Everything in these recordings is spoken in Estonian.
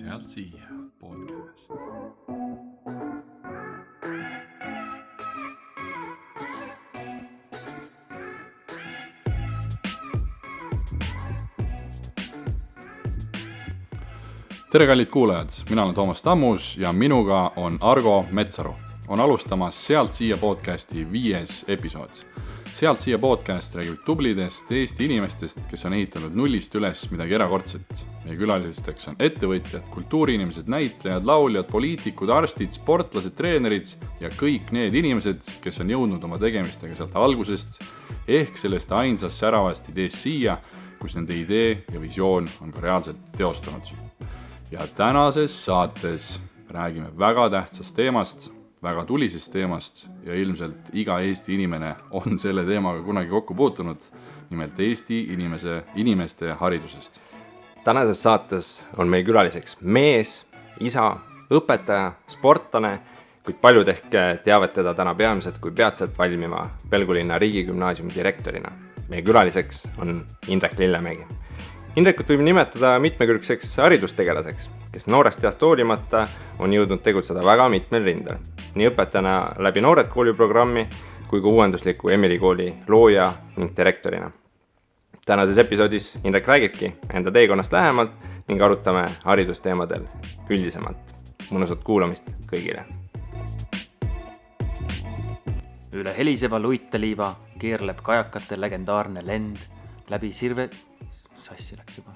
Sealt siia podcast. Tere kallid kuulajad, mina olen Toomas Tammus ja minuga on Argo Metsaru. On alustamas Sealt siia podcasti 5. episood. Sealt siia podcast räägib tublidest Eesti inimestest, kes on ehitanud nullist üles midagi erakordset. Meie külalisteks on ettevõtjad, kultuuriinimesed, näitlejad, lauljad, poliitikud, arstid, sportlased, treenerid ja kõik need inimesed, kes on jõudnud oma tegemistega sealt algusest ehk sellest ainsast säravast ideest siia, kus nende idee ja visioon on ka reaalselt teostunud. Ja tänases saates räägime väga tähtsast teemast, väga tulisest teemast ja ilmselt iga Eesti inimene on selle teemaga kunagi kokku puutunud, nimelt Eesti inimeste haridusest. Tänases saates on meil külaliseks mees, isa, õpetaja, sportlane, kuid paljud ehk teavad teda täna peamiselt kui peatselt valmiva Pelgulinna riigigümnaasiumi direktorina. Meie külaliseks on Indrek Lillemägi. Indrekut võib nimetada mitmekülgseks haridustegelaseks, kes noorest east hoolimata on jõudnud tegutseda väga mitmel rindel. Nii õpetajana läbi Noored kooli programmi kui ka uuendusliku Emily kooli looja ning direktorina. Tänases episoodis Indrek räägibki enda teekonnast lähemalt ning arutame haridusteemadel üldisemalt. Mõnusat kuulamist kõigile. Üle heliseva luiteliiva keerleb kajakate legendaarne lend läbi sirve... Sassi läks juba.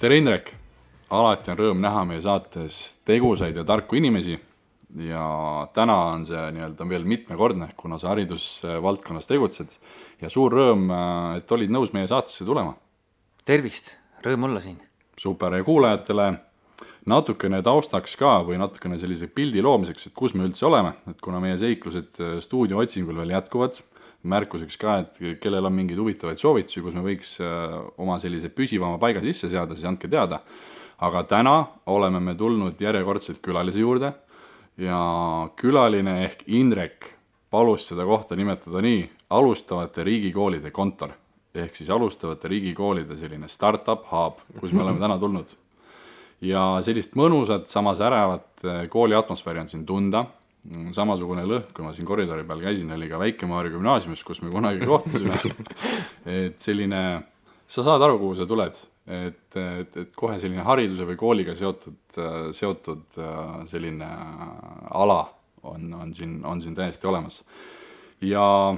Tere Indrek! Alati on rõõm näha meie saates tegusaid ja tarku inimesi ja täna on see veel mitmekordne, kuna sa haridusvaldkonnas tegutsed ja suur rõõm, et olid nõus meie saatesse tulema. Tervist, rõõm olla siin. Super, ja kuulajatele natukene taustaks ka või natukene sellise pildi loomiseks, et kus me üldse oleme, et kuna meie seiklused stuudio otsingul veel jätkuvad, märkuseks ka, et kellel on mingeid huvitavaid soovitusi, kus me võiks oma sellise püsivama paiga sisse seada, siis andke teada. Aga täna oleme me tulnud järjekordselt külalise juurde ja külaline ehk Indrek palus seda kohta nimetada nii alustavate riigikoolide kontor. Ehk siis alustavate riigikoolide selline startup hub, kus me oleme täna tulnud. Ja sellist mõnusat, samas ärevat kooli atmosfääri on siin tunda. Samasugune lõhk, kui ma siin koridori peal käisin, oli ka Väike-Maarja gümnaasiumis, kus me kunagi kohtusime. Et selline, sa saad aru, kuhu sa tuled, et kohe selline hariduse või kooliga seotud selline ala on siin täiesti olemas. Ja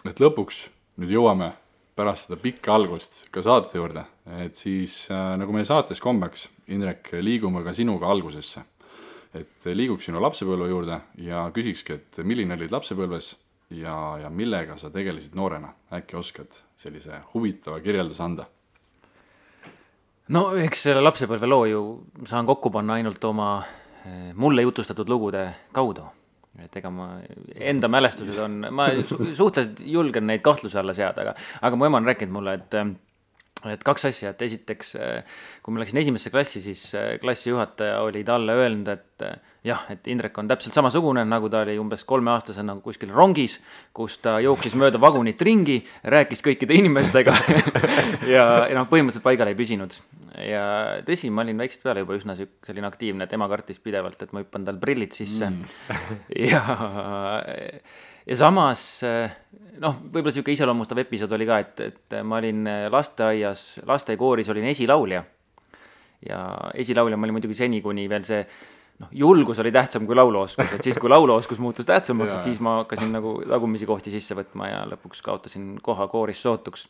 et lõpuks nüüd jõuame pärast seda pikka algust ka saate juurde, et siis nagu meie saates kombeks, Indrek, liigume ka sinuga algusesse. Et liiguks sinu lapsepõlve juurde ja küsikski, et milline olid lapsepõlves ja millega sa tegelesid noorena. Äkki oskad sellise huvitava kirjelduse anda? No eks selle lapsepõlve loo ju saan kokku panna ainult oma mulle jutustatud lugude kaudu. Et ega ma enda mälestused on, ma suhteliselt julgen neid kahtluse alla seada, aga mu ema on rääkinud mulle, et kaks asja, et esiteks, kui ma läksin esimesse klassi, siis klassijuhataja oli talle öelnud, et jah, et Indrek on täpselt samasugune, nagu ta oli umbes 3-aastasena kuskil rongis, kus ta jooksis mööda vagunit ringi, rääkis kõikide inimestega ja põhimõtteliselt paigal ei püsinud. Ja tõsi, ma olin väiksest peale juba üsna selline aktiivne, et ema kartis pidevalt, et ma hüppan tal prillid sisse. Ja samas, võib-olla selline iseloomustav episood oli ka, et ma olin lasteaiakooris olin esilaulja. Ja esilaulja ma olin muidugi seni, kuni veel see julgus oli tähtsam kui lauluoskus. Et siis, kui lauluoskus muutus tähtsamaks, et siis ma hakkasin nagu tagumisi kohti sisse võtma ja lõpuks kaotasin koha kooris sootuks.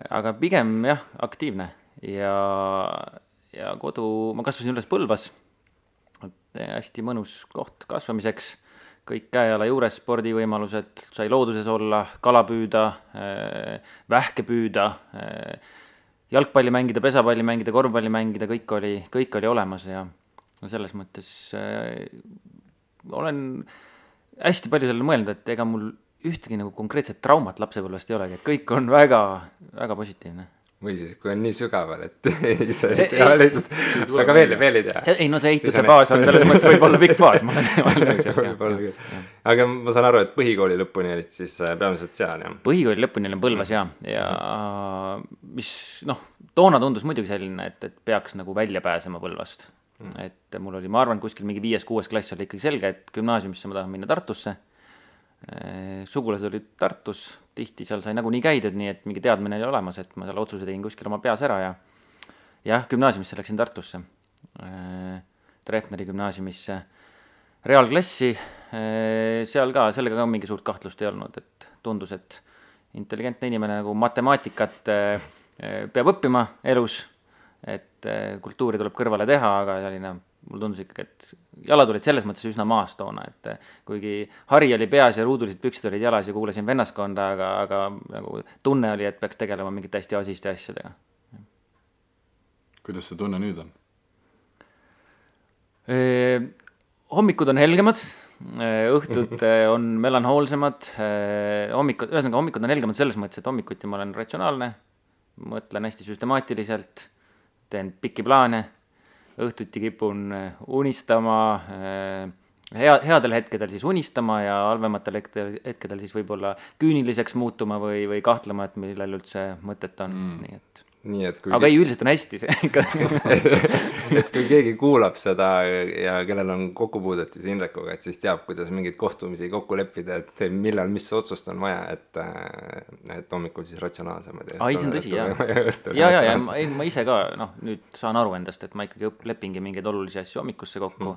Aga pigem jah, aktiivne. Ja kodu, ma kasvasin üles Põlvas. Hästi mõnus koht kasvamiseks. Kõik käeala juures spordivõimalused, sai looduses olla, kala püüda, vähke püüda, jalgpalli mängida, pesapalli mängida, korvpalli mängida, kõik oli olemas ja selles mõttes olen hästi palju sellele mõelnud, et ega mul ühtegi nagu konkreetset traumat lapsepõlvest ei olegi, et kõik on väga, väga positiivne. või siis, kui on nii sügaval, et ise ei tea lihtsalt, aga veel ei tea. Ei no see ehituse faas on selles mõttes võib-olla pikk faas, ma olen nõus. Aga ma saan aru, et põhikooli lõpuni olid siis peamiselt seal, jah? Põhikooli lõpuni olin Põlvas ja mis toona tundus muidugi selline, et peaks nagu välja pääsema Põlvast. Et mul oli, ma arvan, kuskil mingi 5.–6. klass oli ikkagi selge, et gümnaasiumisse ma tahan minna Tartusse. Sugulased olid Tartus, tihti seal sai nagunii käidud, nii et mingi teadmine oli olemas, et ma seal otsuse tegin kuskil oma peas ära ja jah, gümnaasiumisse läksin Tartusse, Treffneri gümnaasiumisse, reaalklassi, sellega ka mingi suurt kahtlust ei olnud, et tundus, et intelligentne inimene nagu matemaatikat peab õppima elus, et kultuuri tuleb kõrvale teha, aga selline mul tundus ikkagi, et jalad olid selles mõttes üsna maas toona, et kuigi hari oli peas ja ruudulised püksid olid jalas ja kuulasin vennaskonda, aga nagu tunne oli, et peaks tegelema mingite hästi asiste asjadega. Kuidas see tunne nüüd on? Hommikud on helgemad, õhtud on melanhoolsemad, hommikud on helgemad selles mõttes, et hommikuti ma olen ratsionaalne, mõtlen hästi süstemaatiliselt, teen pikki plaane, õhtuti kipun unistama, headel hetkedel siis unistama ja halvematel hetkedel siis võib-olla küüniliseks muutuma või kahtlema, et millel üldse mõtet on. Nii et aga ei, üldiselt on hästi see ikka. Et kui keegi kuulab seda ja kellel on kokkupuudet siis Indrekuga, et siis teab, kuidas mingeid kohtumisi kokku leppida, et millal mis otsust on vaja, et hommikul siis ratsionaalsemad. Ai, see on tõsi, jah. Ja ma ise ka, nüüd saan aru endast, et ma ikkagi lepingi mingeid olulisi asju hommikusse kokku.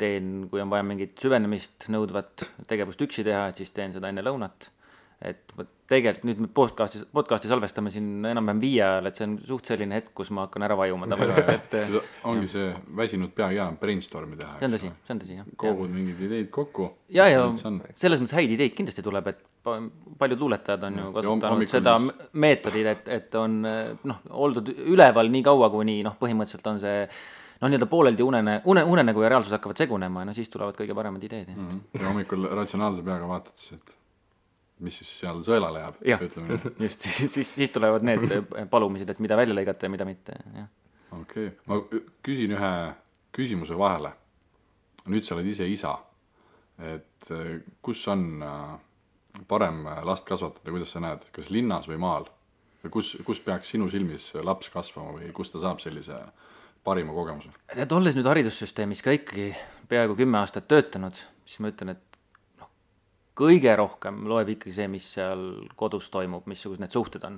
Teen, kui on vaja mingit süvenemist nõudvat tegevust üksi teha, et siis teen seda enne lõunat. Et tegelikult nüüd me podcasti salvestame siin enam-vähem 5 ajal, et see on suht selline hetk, kus ma hakkan ära vajuma. Ongi see väsinud pea hea brainstormi teha. See on tõsi, jah. Kogud mingid ideid kokku. Ja selles mõttes häid ideid kindlasti tuleb, et paljud luuletajad on ju kasutanud seda meetodit, et on oldud üleval nii kaua, kuni põhimõtteliselt on see nii-öelda pooleldi unenägu ja reaalsus hakkavad segunema ja siis tulevad kõige paremad ideed. Ja hommikul ratsionaalse peaga vaatad siis, et mis siis seal sõelale jääb, ütleme. Just, siis tulevad need palumised, et mida välja lõigata ja mida mitte. Okei, ma küsin ühe küsimuse vahele. Nüüd sa oled ise isa, et kus on parem last kasvatada, kuidas sa näed, kas linnas või maal? Kus peaks sinu silmis laps kasvama või kus ta saab sellise parima kogemuse? Olles nüüd haridussüsteemis ka ikkagi peaaegu 10 aastat töötanud, siis ma ütlen, et kõige rohkem loeb ikkagi see, mis seal kodus toimub, missugused need suhted on.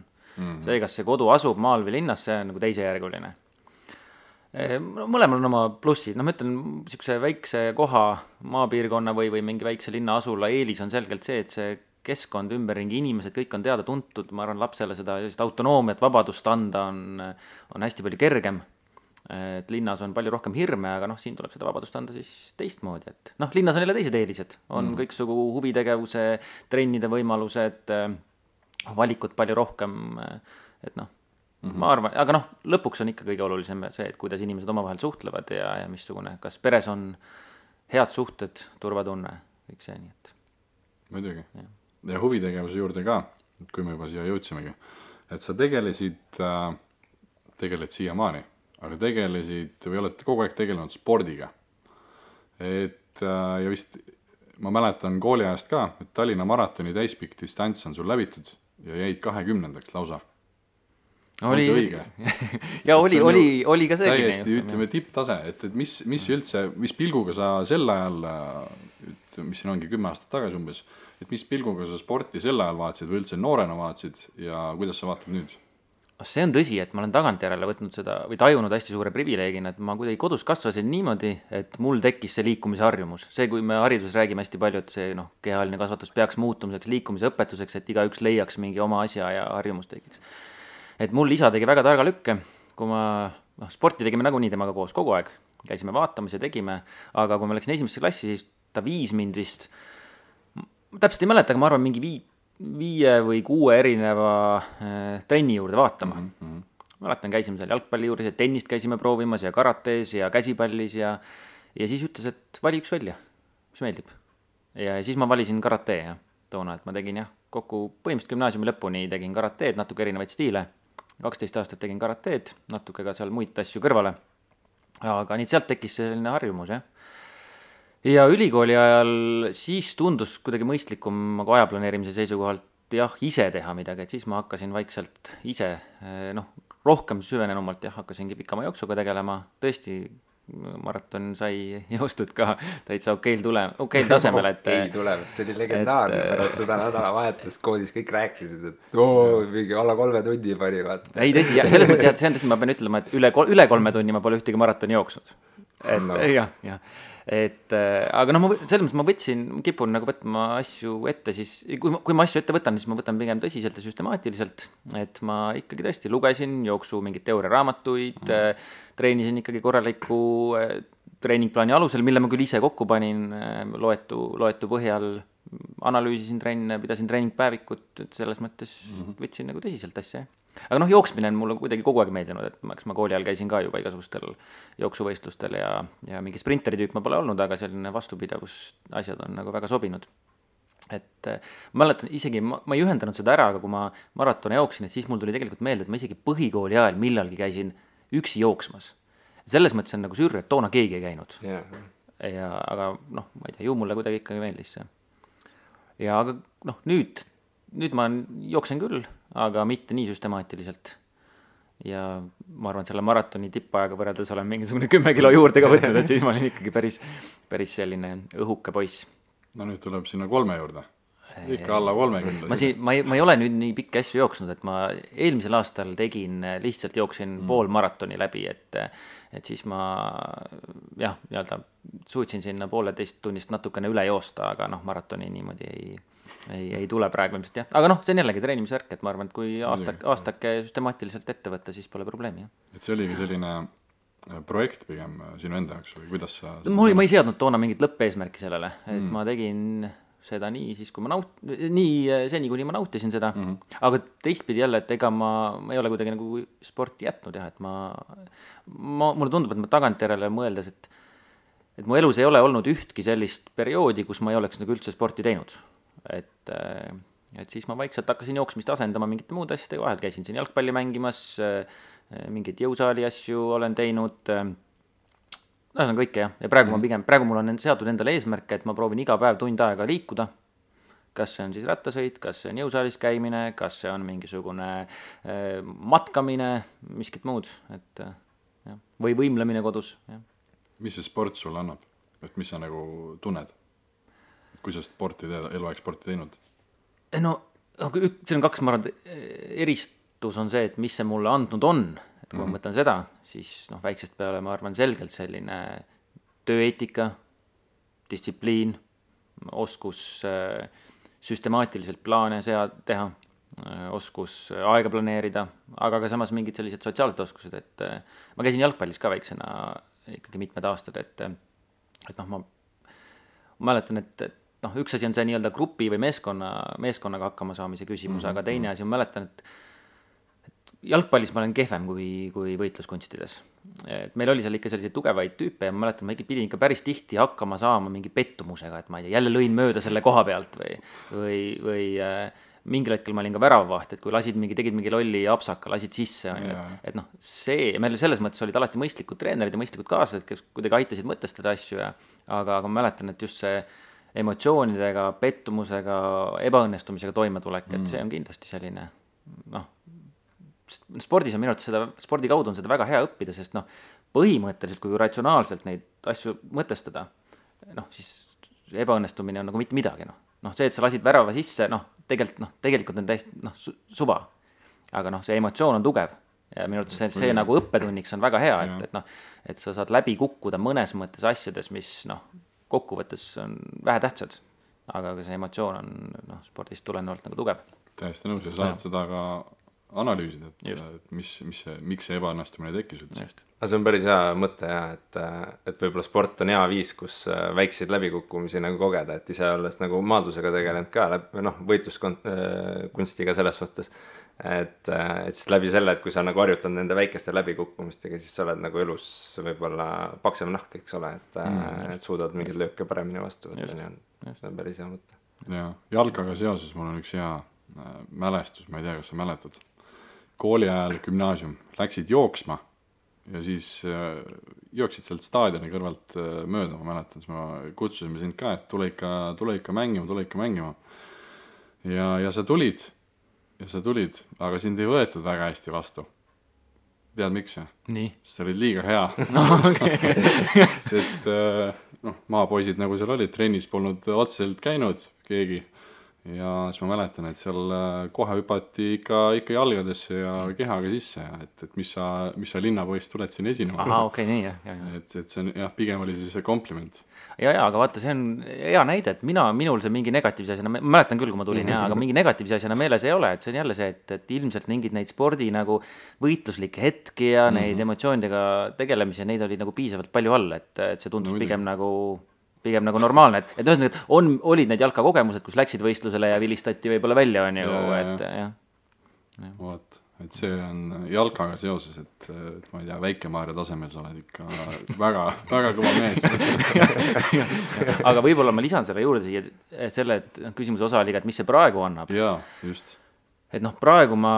See, kas see kodu asub maal või linnas, see on nagu teisejärguline. Mõlemal on oma plussid, ma ütlen, niisuguse väikse koha, maapiirkonna või mingi väikse linna asula eelis on selgelt see, et see keskkond, ümberringi inimesed, kõik on teada tuntud, ma arvan, lapsele seda autonoomiat, vabadust anda on hästi palju kergem. Et linnas on palju rohkem hirme, aga siin tuleb seda vabadust anda siis teistmoodi, et linnas on jälle teised eelised, on kõiksugu huvitegevuse, trennide võimalused, valikut palju rohkem, et ma arvan, aga lõpuks on ikka kõige olulisem see, et kuidas inimesed omavahel suhtlevad ja missugune, kas peres on head suhted, turvatunne, kõik see, nii et. Muidugi. Ja huvitegevuse juurde ka, kui me juba siia jõudsimegi, et sa tegeled siiamaani, aga tegelesid või oled kogu aeg tegelenud spordiga. Ja vist ma mäletan kooliajast ka, et Tallinna maratoni täispikk distants on sul läbitud ja jäid 20. lausa. Oli õige? Ja oli ka see. Täiesti ütleme tipptase, et mis üldse, mis pilguga sa sel ajal, mis siin ongi 10 aastat tagasi umbes, et mis pilguga sa sporti sel ajal vaatasid või üldse noorena vaatasid ja kuidas sa vaatad nüüd? See on tõsi, et ma olen tagantjärele võtnud seda või tajunud hästi suure privileegina, et ma kuidagi kodus kasvasin niimoodi, et mul tekkis see liikumise harjumus. See, kui me hariduses räägime hästi palju, et see kehaline kasvatus peaks muutumiseks, liikumise õpetuseks, et igaüks leiaks mingi oma asja ja harjumus tekiks. Et mul isa tegi väga targa lükke, kui ma sporti tegime nagunii temaga koos kogu aeg, käisime vaatamas ja tegime, aga kui ma läksin esimesse klassi, siis ta viis mind vist, täpselt ei mäleta, aga ma arvan mingi 5 või 6 erineva trenni juurde vaatama. Mäletan, käisime seal jalgpalli juures ja tennist käisime proovimas ja karates ja käsipallis ja siis ütles, et vali üks välja, mis meeldib. Ja siis ma valisin karate toona, et ma tegin kokku põhimõtteliselt gümnaasiumi lõpuni tegin karateed, natuke erinevaid stiile. 12 aastat tegin karateed, natuke ka seal muid asju kõrvale. Aga nii sealt tekkis selline harjumus, jah. Ja ülikooli ajal siis tundus kuidagi mõistlikum nagu aja planeerimise seisukohalt jah, ise teha midagi, et siis ma hakkasin vaikselt ise, rohkem süvenenumalt jah, hakkasingi pikama jooksuga tegelema, tõesti maraton sai joostud ka täitsa okeil tasemel, et okei tulemus, see oli legendaarne pärast seda nädalavahetust koolis kõik rääkisid, et mingi alla 3 tunni pani vaata. Ei tõsi, selles mõttes jah, see on tõsi, ma pean ütlema, et üle 3 tunni ma pole ühtegi maratoni jooksnud. Jah. Et aga selles mõttes ma kipun nagu võtma asju ette siis, kui ma asju ette võtan, siis ma võtan pigem tõsiselt ja süstemaatiliselt, et ma ikkagi tõesti lugesin jooksu mingeid teooriaraamatuid, treenisin ikkagi korraliku treeningplaani alusel, mille ma küll ise kokku panin, loetu põhjal, analüüsisin trenne, pidasin treeningpäevikut, et selles mõttes võtsin nagu tõsiselt asja. Aga jooksmine on mulle kuidagi kogu aeg meeldinud, et ma kooli ajal käisin ka juba igasugustel jooksuvõistlustel ja mingi sprinteri tüüp ma pole olnud, aga selline vastupidavus asjad on nagu väga sobinud. Et ma mäletan isegi, ma ei ühendanud seda ära, aga kui ma maratone jooksin, et siis mul tuli tegelikult meelde, et ma isegi põhikooli ajal millalgi käisin üksi jooksmas. Selles mõttes on nagu sürr, et toona keegi ei käinud. Aga ma ei tea, ju mulle kuidagi ikkagi meeldis see. Ja aga nüüd ma jooksen küll, aga mitte nii süstemaatiliselt. Ja ma arvan, et selle maratoni tippajaga võrreldes olen mingisugune 10 kilo juurde ka võtnud, et siis ma olin ikkagi päris selline õhuke poiss. No nüüd tuleb sinna 3 juurde. Ikka alla 30. Ma ei ole nüüd nii pikki asju jooksnud, et ma eelmisel aastal lihtsalt jooksin pool maratoni läbi, et siis ma suutsin sinna 1,5 tunnist natukene üle joosta, aga maratoni niimoodi ei tule praegu ilmselt jah. Aga see on jällegi treenimise värk, et ma arvan, et kui aastake süstemaatiliselt ette võtta, siis pole probleemi. Et see oligi selline projekt pigem sinu enda jaoks või kuidas sa... Ma ei seadnud toona mingit lõppeesmärki sellele, et ma tegin seda nii siis, kui seni, kuni ma nautisin seda, aga teistpidi jälle, et ega ma ei ole kuidagi nagu sporti jätnud jah, et mulle tundub, et ma tagantjärele mõeldes, et mu elus ei ole olnud ühtki sellist perioodi, kus ma ei oleks nagu üldse sporti teinud. Et siis ma vaikselt hakkasin jooksmist asendama mingite muude asjadega, vahel käisin siin jalgpalli mängimas, mingid jõusaali asju olen teinud, see on kõike jah, ja praegu mul on seatud endale eesmärke, et ma proovin iga päev tund aega liikuda, kas see on siis rattasõit, kas see on jõusaalis käimine, kas see on mingisugune matkamine, miskit muud, et jah, või võimlemine kodus. Jah. Mis see sport sulle annab, et mis sa nagu tunned? Kui sa eluaeg sporti teinud? See on 2, ma arvan, eristus on see, et mis see mulle andnud on. Et kui ma mõtlen seda, siis väiksest peale ma arvan selgelt selline tööeetika, distsipliin, oskus süstemaatiliselt plaane teha, oskus aega planeerida, aga ka samas mingid sellised sotsiaalsed oskused, et ma käisin jalgpallis ka väiksena ikkagi mitmed aastad, et ma mäletan, et üks asi on see nii-öelda grupi või meeskonnaga hakkama saamise küsimus, aga teine asi, ma mäletan, et jalgpallis ma olen kehvem kui võitluskunstides. Et meil oli seal ikka selliseid tugevaid tüüpe ja ma mäletan, ma pidin ikka päris tihti hakkama saama mingi pettumusega, et ma ei tea, jälle lõin mööda selle koha pealt või mingil hetkel ma olin ka väravavaht, et kui tegid mingi lolli apsaka, lasid sisse, et meil selles mõttes olid alati mõistlikud treenerid ja mõistlikud kaaslased, kes kuidagi aitasid mõtestada asju, aga ma mäletan, et just see emotsioonidega, pettumusega, ebaõnnestumisega toimetulek, et see on kindlasti selline, spordis on minu arvates spordi kaudu on seda väga hea õppida, sest põhimõtteliselt, kui ratsionaalselt neid asju mõtestada, siis ebaõnnestumine on nagu mitte midagi, see, et sa lasid värava sisse, tegelikult on täiesti suva, aga see emotsioon on tugev ja minu arvates see nagu õppetunniks on väga hea, et sa saad läbi kukkuda mõnes mõttes asjades, mis kokkuvõttes on vähe tähtsad, aga see emotsioon on spordist tulenevalt nagu tugev. Täiesti nõus ja saad seda ka analüüsida, et miks see ebaõnnestumine tekkis üldse. Aga see on päris hea mõte et võib-olla sport on hea viis, kus väikseid läbikukkumisi nagu kogeda, et ise olles nagu maadlusega tegelenud ka võitluskunstiga selles suhtes, et siis läbi selle, et kui sa nagu harjutad nende väikeste läbikukkumistega, siis sa oled nagu elus võib-olla paksem nahk, eks ole, et suudad mingeid lööke paremini vastu võtta, see on päris hea mõte. Ja jalkaga seoses mul on üks hea mälestus, ma ei tea, kas sa mäletad, kooli ajal gümnaasium, läksid jooksma ja siis jooksid sealt staadioni kõrvalt mööda, ma mäletan, siis ma kutsusime sind ka, et tule ikka mängima. Ja sa tulid, aga sind ei võetud väga hästi vastu. Tead miks? Nii. Sa olid liiga hea. No, okay. Sest maapoisid nagu seal olid, trennis polnud otseselt käinud keegi. Ja siis ma mäletan, et seal kohe hüpati ikka jalgadesse ja kehaga sisse, et mis sa linnapoist tuled siin esinema. Aha, okei, nii jah. Et see on jah, pigem oli siis kompliment. Ja, aga vaata, see on hea näide, et minul see mingi negatiivse asjana, ma mäletan küll, kui ma tulin, aga mingi negatiivse asjana meeles ei ole, et see on jälle see, et ilmselt mingid neid spordi nagu võitluslikke hetki ja neid emotsioonidega tegelemisi, neid oli nagu piisavalt palju all, et see tundus pigem nagu normaalne, et ühesõnaga, olid need jalkakogemused, kus läksid võistlusele ja vilistati võib-olla välja, on ju, et jah. Vot, et see on jalkaga seoses, et ma ei tea, Väike-Maarja tasemel sa oled ikka väga, väga kõva mees. Aga võib-olla ma lisan selle juurde siia selle, et küsimuse osa oli, et mis see praegu annab. Jaa, just. Et praegu ma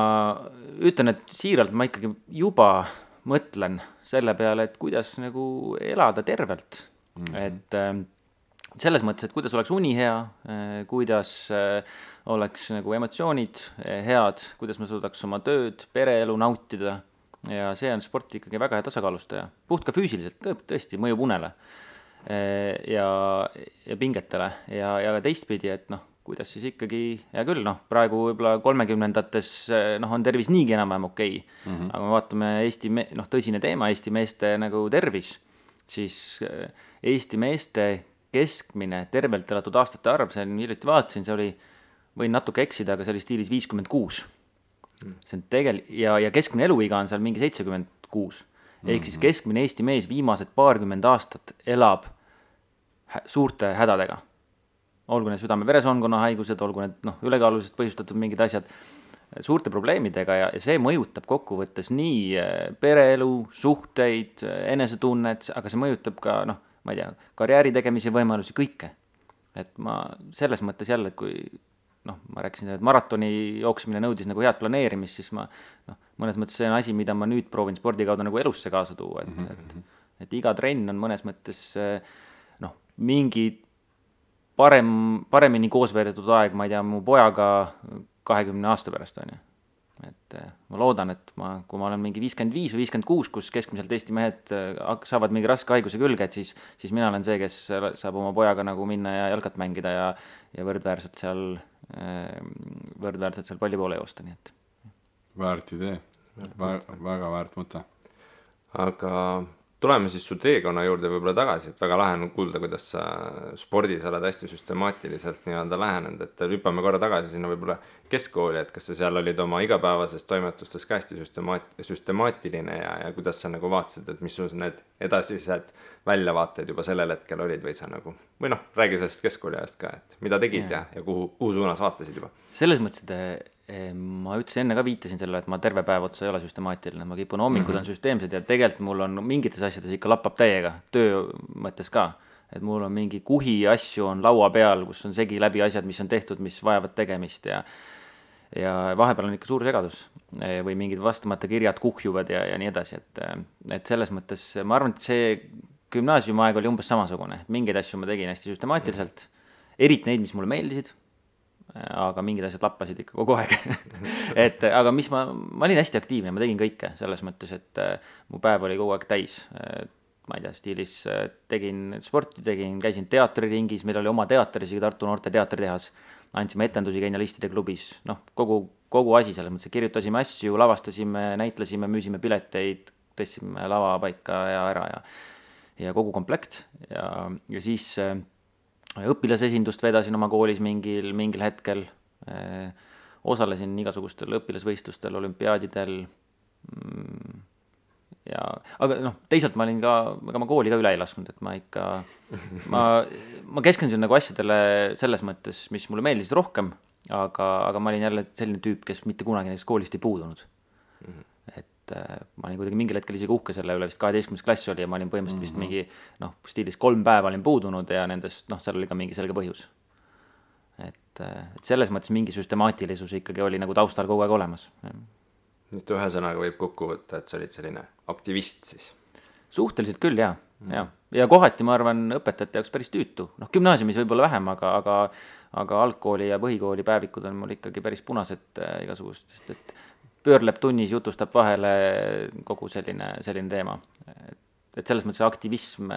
ütlen, et siiralt ma ikkagi juba mõtlen selle peale, et kuidas nagu elada tervelt. Et selles mõttes, et kuidas oleks uni hea, kuidas oleks nagu emotsioonid head, kuidas ma suudaks oma tööd, pereelu nautida ja see on sport ikkagi väga hea tasakaalustaja. Puht ka füüsiliselt, tõesti, mõjub unele ja pingetele ja ka teistpidi, et kuidas siis ikkagi, hea küll, praegu võib-olla 30-ndates on tervis niigi enam-vähem okei. Aga me vaatame tõsine teema, Eesti meeste nagu tervis, siis Eesti meeste keskmine tervelt elatud aastate arv, see on hiljuti vaatasin, see oli, võin natuke eksida, aga see oli stiilis 56. See on ja keskmine eluiga on seal mingi 76. Ehk siis keskmine Eesti mees viimased 20 aastat elab suurte hädadega. Olgu need südame-veresoonkonna haigused, olgu need ülekaalulisest põhjustatud mingid asjad, suurte probleemidega ja see mõjutab kokkuvõttes nii pereelu, suhteid, enesetunnet, aga see mõjutab ka, ma ei tea, karjääri tegemise võimalusi, kõike. Et ma selles mõttes jälle, et kui ma rääkisin, et maratoni jooksmine nõudis nagu head planeerimist, siis ma mõnes mõttes see on asi, mida ma nüüd proovin spordi kaudu nagu elusse kaasa tuua, et iga trenn on mõnes mõttes mingi paremini koos veedetud aeg, ma ei tea, mu pojaga 20 aasta pärast on ju. Et ma loodan, et kui ma olen mingi 55 või 56, kus keskmiselt Eesti mehed saavad mingi raske haiguse külge, et siis mina olen see, kes saab oma pojaga nagu minna ja jalkat mängida ja võrdväärselt seal palli poole joosta, nii et. Väärt idee, väga väärt mõte. Aga tuleme siis su teekonna juurde võib-olla tagasi, et väga lahe on kuulda, kuidas sa spordis oled hästi süstemaatiliselt nii-öelda lähenenud, et hüppame korra tagasi sinna võib-olla keskkooli, et kas sa seal olid oma igapäevases toimetustes ka hästi süstemaatiline ja kuidas sa nagu vaatasid, et mis sul need edasised väljavaated juba sellel hetkel olid või sa nagu, või räägi sellest keskkooli ajast ka, et mida tegid ja kuhu suunas vaatasid juba? Selles mõttes, et ma ütlesin enne ka viitasin sellele, et ma terve päev otsa ei ole süstemaatiline, ma kipun hommikud on süsteemsed ja tegelikult mul on mingites asjades ikka lappab täiega, töö mõttes ka, et mul on mingi kuhi asju on laua peal, kus on segi läbi asjad, mis on tehtud, mis vajavad tegemist ja vahepeal on ikka suur segadus või mingid vastamata kirjad kuhjuvad ja nii edasi, et selles mõttes ma arvan, et see gümnaasiumaeg oli umbes samasugune, et mingeid asju ma tegin hästi süstemaatiliselt, eriti neid, mis mulle meeldisid, aga mingid asjad lappasid ikka kogu aeg. Aga mis ma olin hästi aktiivne, ma tegin kõike selles mõttes, et mu päev oli kogu aeg täis. Ma ei tea, stiilis tegin sporti, käisin teatriringis, meil oli oma teater, isegi Tartu Noorte Teatritehas, andsime etendusi Genialistide klubis, kogu asi selles mõttes, kirjutasime asju, lavastasime, näitlesime, müüsime pileteid, tõstsime lava paika ja ära ja kogu komplekt ja siis õpilasesindust vedasin oma koolis mingil hetkel, osalesin igasugustel õpilasvõistlustel, olümpiaadidel aga teisalt ma olin ma kooli ka üle ei lasknud, et ma keskendusin nagu asjadele selles mõttes, mis mulle meeldisid rohkem, aga ma olin jälle selline tüüp, kes mitte kunagi näiteks koolist ei puudunud. Et ma olin kuidagi mingil hetkel isegi uhke selle üle, vist 12. klass oli ja ma olin põhimõtteliselt vist mingi stiilis 3 päeva olin puudunud ja nendest seal oli ka mingi selge põhjus. Et selles mõttes mingi süstemaatilisus ikkagi oli nagu taustal kogu aeg olemas. nüüd ühesõnaga võib kokku võtta, et sa olid selline aktivist siis. Suhteliselt küll, jah. Ja kohati, ma arvan, õpetajate jaoks päris tüütu. Noh, gümnaasiumis võib-olla vähem, aga algkooli ja põhikooli päevikud on mul ikkagi päris punased igasugustest, et pöörleb tunnis, jutustab vahele kogu selline teema. Et selles mõttes aktivism,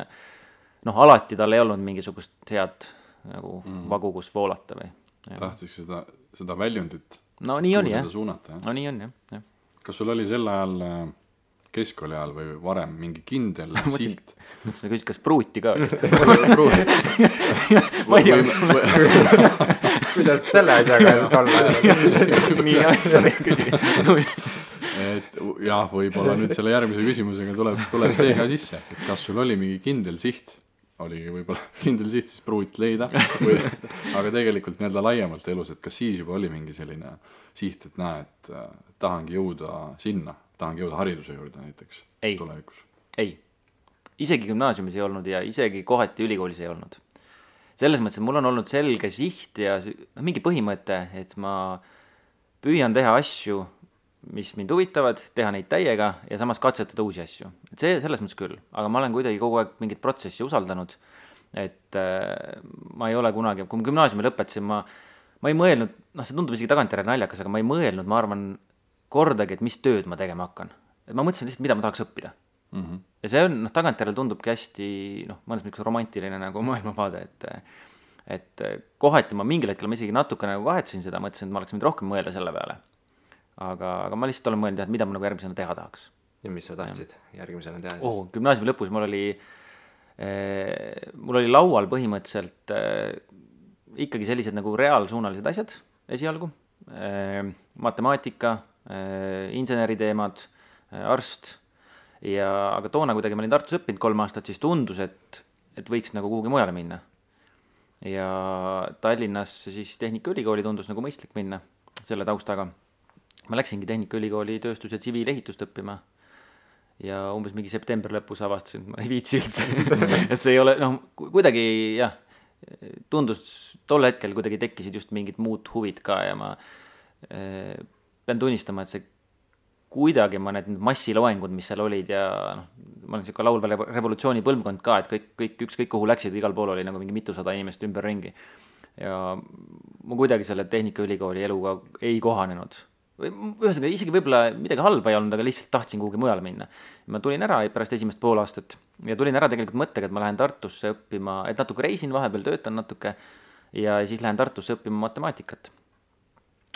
noh, alati tal ei olnud mingisugust head nagu vagu, kus voolata või. Tahtis seda väljundit. No nii on, jah. Suunata, no nii on, jah. Kas sul oli sel ajal keskkooli ajal või varem mingi kindel siht? Mõtlesin, küsid, kas pruuti ka? Ma ei tea, kuidas selle asjaga olla? Nii, sa küsid. Et jah, võib-olla nüüd selle järgmise küsimusega tuleb see ka sisse, et kas sul oli mingi kindel siht, oligi võib-olla kindel siht siis pruut leida, aga tegelikult nii-öelda laiemalt elus, et kas siis juba oli mingi selline siht, et näe, et tahangi jõuda sinna, tahangi jõuda hariduse juurde näiteks tulevikus? Ei, isegi gümnaasiumis ei olnud ja isegi kohati ülikoolis ei olnud. Selles mõttes, et mul on olnud selge siht ja mingi põhimõte, et ma püüan teha asju, mis mind huvitavad, teha neid täiega ja samas katsetada uusi asju. Et see selles mõttes küll, aga ma olen kuidagi kogu aeg mingit protsessi usaldanud, et ma ei ole kunagi, kui ma gümnaasiumi lõpetasin, ma ei mõelnud, noh, see tundub isegi tagantjärele naljakas, aga ma ei mõelnud, ma arvan, kordagi, et mis tööd ma tegema hakkan. Et ma mõtlesin lihtsalt, mida ma tahaks õppida. Ja see on, noh, tagantjärele tundubki hästi, noh, mõnes mõttes romantiline nagu maailmavaade, et kohati ma mingil hetkel ma isegi natuke nagu kahetsin seda, mõtlesin, et ma oleks võinud rohkem mõelda selle peale. Aga ma lihtsalt olen mõelnud, et mida ma nagu järgmisena teha tahaks. Ja mis sa tahtsid järgmisena teha siis? Gümnaasiumi lõpus mul oli laual põhimõtteliselt ikkagi sellised nagu reaalsuunalised asjad esialgu. Matemaatika, inseneriteemad, arst. Aga toona kuidagi ma olin Tartus õppinud 3 aastat, siis tundus, et võiks nagu kuhugi mujale minna. Ja Tallinnas siis Tehnikaülikooli tundus nagu mõistlik minna selle taustaga. Ma läksingi Tehnikaülikooli tööstus- ja tsiviilehitust õppima ja umbes mingi septembri lõpus avastasin, et ma ei viitsi üldse. Et see ei ole, noh, kuidagi jah, tundus tol hetkel kuidagi tekkisid just mingid muud huvid ka ja ma pean tunnistama, et see kuidagi ma need massiloengud, mis seal olid ja noh, ma olen siuke laulva revolutsiooni põlvkond ka, et kõik ükskõik kuhu läksid, igal pool oli nagu mingi mitusada inimest ümber ringi. Ja ma kuidagi selle Tehnikaülikooli eluga ei kohanenud. Ühesõnaga, isegi võib-olla midagi halba ei olnud, aga lihtsalt tahtsin kuhugi mujale minna. Ma tulin ära pärast esimest pool aastat ja tulin ära tegelikult mõttega, et ma lähen Tartusse õppima, et natuke reisin, vahepeal töötan natuke ja siis lähen Tartusse õppima matemaatikat.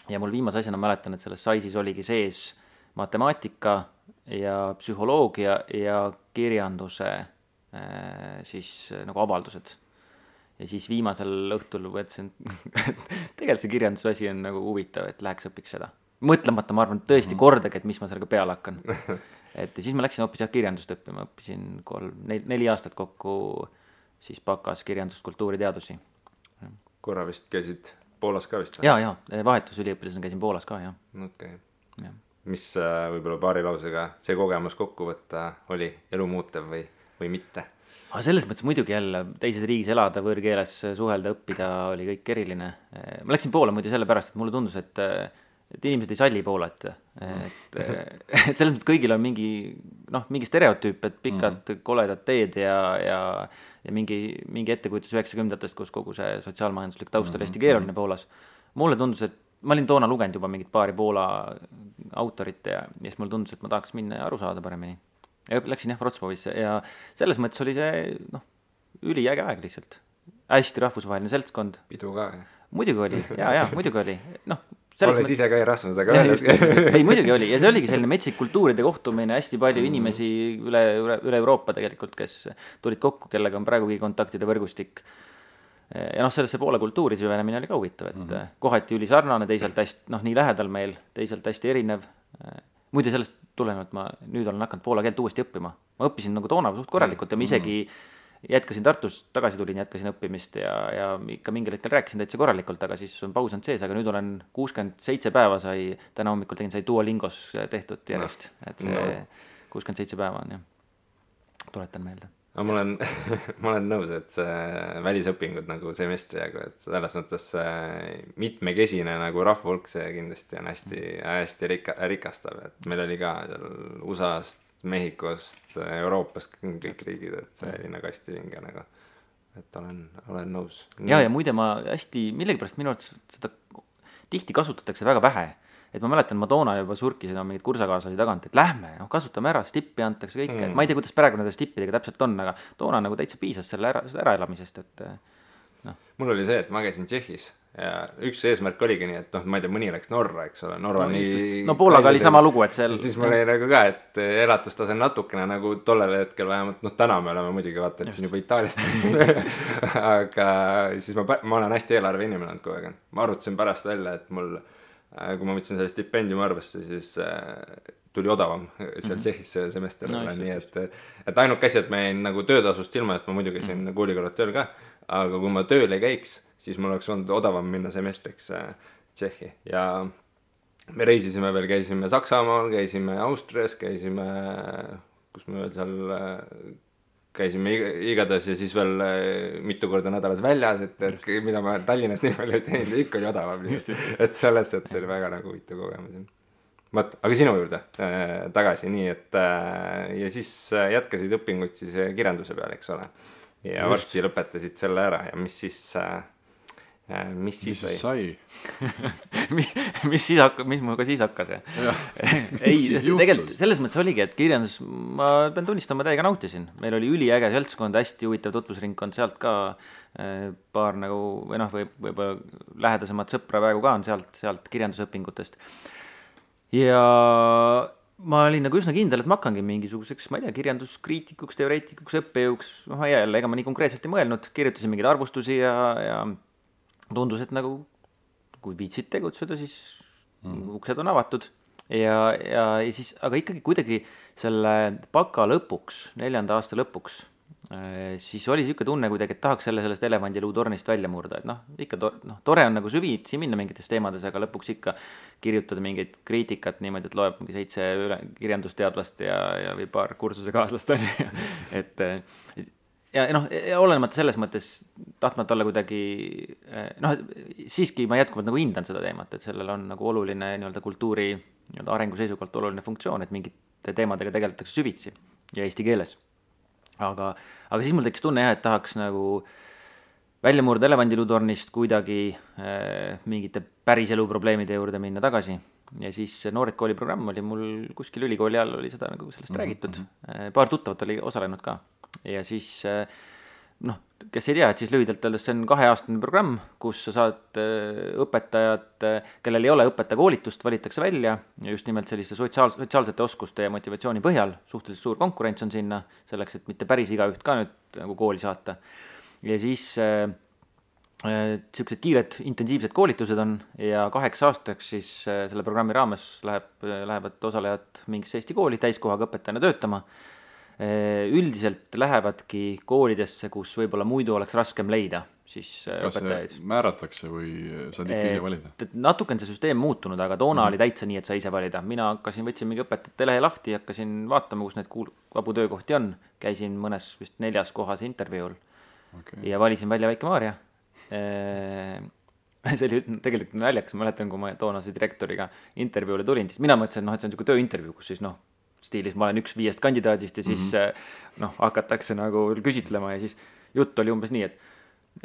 Ja mul viimase asjana mäletan, et selles saisis oligi sees matemaatika ja psühholoogia ja kirjanduse siis nagu avaldused. Ja siis viimasel õhtul võtsin, et tegelikult see kirjanduse asi on nagu huvitav, et läheks õpiks seda. Mõtlemata, ma arvan, tõesti kordagi, et mis ma sellega peale hakkan. Et siis ma läksin hoopis kirjandust õppima, õppisin 4 aastat kokku siis bakas kirjandust, kultuuriteadusi. Korra vist käisid Poolas ka vist? Jaa, vahetusüliõpilasena käisin Poolas ka, jah. Okay. Mis võib-olla paari lausega see kogemus kokku võtta oli elumuutev või mitte? Selles mõttes muidugi jälle teises riigis elada, võõrkeeles suhelda, õppida oli kõik eriline. Ma läksin Poola muidu sellepärast, et mulle tundus, et inimesed ei salli Poolat. Et selles mõttes kõigil on mingi stereotüüp, et pikad koledad teed ja mingi ettekujutus 90-ndatest, kus kogu see sotsiaalmajanduslik taust oli hästi keeruline Poolas. Mulle tundus, et ma olin toona lugenud juba mingit paari Poola autorit ja siis mulle tundus, et ma tahaks minna ja aru saada paremini. Ja läksin Wrocławisse ja selles mõttes oli see üliäge aeg lihtsalt. Hästi rahvusvaheline seltskond. Pidu ka, Muidugi oli, muidugi oli. Olles ise ka Erasmusega öelnud. Ei, muidugi oli ja see oligi selline metsik kultuuride kohtumine, hästi palju inimesi üle Euroopa tegelikult, kes tulid kokku, kellega on praegugi kontaktide võrgustik. Ja sellesse Poola kultuuri süvenemine oli ka huvitav, et kohati üli sarnane, teisalt hästi, nii lähedal meil, teisalt hästi erinev. Muide sellest tulenevalt ma nüüd olen hakanud poola keelt uuesti õppima. Ma õppisin nagu toona suht korralikult ja ma isegi jätkasin Tartus, tagasi tulin, jätkasin õppimist ja ikka mingil hetkel rääkisin täitsa korralikult, aga siis on paus on sees, aga nüüd olen 67 päeva täna hommikul sai Duolingos tehtud järjest, et see 67 päeva on, jah. Tuletan meelde. no ma olen nõus, et see välisõpingud nagu semestri jagu, et selles mõttes mitmekesine nagu rahvahulk, see kindlasti on hästi rikastav, et meil oli ka seal USA-st, Mehhikost, Euroopast kõik riigid, et see oli nagu hästi vinge nagu, et olen nõus. Ja muide ma hästi, millegipärast minu arvates seda tihti kasutatakse väga vähe. Et ma mäletan, ma toona juba surkisin mingid kursakaaslasi tagant, et lähme, kasutame ära, stippi antakse kõike. Et ma ei tea, kuidas praegu nende stippidega täpselt on, aga toona nagu täitsa piisas selle äraelamisest. Et, no. Mul oli see, et ma käisin Tšehhis ja üks eesmärk oligi nii, et ma ei tea, mõni läks Norra, eks ole. Norra nii... No Poolaga oli sama lugu, et seal... Siis mul oli nagu ka, et elatustase natukene nagu tollel hetkel vähemalt, täna me oleme muidugi vaata, et siin juba Itaaliast aga siis ma olen hästi eelarve inimene olnud kogu aeg. Ma arvutasin pärast välja, et mul kui ma võtsin selle stipendiumi arvesse, siis tuli odavam seal Tšehhis see semester olla, nii et ainuke asi, et ma jäin nagu töötasust ilma, sest ma muidu käisin koolikõrvad tööl ka, aga kui ma tööl ei käiks, siis mul oleks olnud odavam minna semestriks Tšehhi ja me reisisime veel, käisime Saksamaal, käisime Austrias, käisime, kus me veel seal käisime igatahes ja siis veel mitu korda nädalas väljas, et mida ma Tallinnas nii palju ei teinud, ikka oli odavam. Et selles, et see oli väga nagu huvitav kogemus. Aga sinu juurde tagasi, nii et ja siis jätkasid õpinguid siis kirjanduse peal, eks ole. Ja varsti lõpetasid selle ära ja mis siis sai? mis muga siis hakkas? Ei, tegelikult selles mõttes oligi, et kirjandus, ma pean tunnistama, täiega nautisin. Meil oli üliäge seltskond, hästi huvitav tutvusringkond, sealt ka paar nagu, või võib-olla lähedasemad sõpra praegu ka on sealt kirjandusõpingutest. Ja ma olin nagu üsna kindel, et ma hakkangi mingisuguseks, ma ei tea, kirjanduskriitikuks, teoreetikuks, õppejõuks, jälle, ega ma nii konkreetselt ei mõelnud, kirjutasin mingeid arvustusi ja tundus, et nagu kui viitsid tegutseda, siis uksed on avatud ja siis, aga ikkagi kuidagi selle baka lõpuks, 4. aasta lõpuks, siis oli siuke tunne kuidagi, et tahaks sellest elevandiluutornist välja murda, et ikka tore on nagu süvitsi minna mingites teemades, aga lõpuks ikka kirjutada mingeid kriitikat niimoodi, et loeb mingi 7 kirjandusteadlast ja või paar kursuse kaaslast on, et ja olenemata selles mõttes tahtmata olla kuidagi, siiski ma jätkuvalt nagu hindan seda teemat, et sellel on nagu oluline kultuuri arengu seisukohalt oluline funktsioon, et mingite teemadega tegeletakse süvitsi ja eesti keeles. Aga siis mul tekkis tunne et tahaks nagu välja murda elevandiluutornist kuidagi mingite päris elu probleemide juurde minna tagasi. Ja siis Noored kooli programm oli mul kuskil ülikooli all oli seda nagu sellest räägitud. Paar tuttavat oli osalenud ka. Ja siis, kes ei tea, et siis lühidalt öeldes see on 2-aastane programm, kus sa saad õpetajad, kellel ei ole õpetajakoolitust, valitakse välja ja just nimelt selliste sotsiaalsete oskuste ja motivatsiooni põhjal, suhteliselt suur konkurents on sinna, selleks, et mitte päris igaüht ka nüüd nagu kooli saata. Ja siis siuksed kiired intensiivsed koolitused on ja 8 aastaks siis selle programmi raames lähevad osalejad mingisse Eesti kooli täiskohaga õpetajana töötama. Üldiselt lähevadki koolidesse, kus võib-olla muidu oleks raskem leida siis õpetajaid. Kas määratakse või saad ikka ise valida? Natuke on see süsteem muutunud, aga toona oli täitsa nii, et sa ise valida. Mina võtsin mingi õpetajate lehe lahti, hakkasin vaatama, kus need vabu töökohti on. Käisin mõnes vist 4. kohas intervjuul ja valisin välja Väike-Maarja. See oli tegelikult naljakas, ma mäletan, kui ma toonase direktoriga intervjuule tulin, siis mina mõtlesin, et see on niisugune tööintervjuu, kus siis stiilis ma olen üks 5 kandidaadist ja siis hakatakse nagu küsitlema ja siis jutt oli umbes nii, et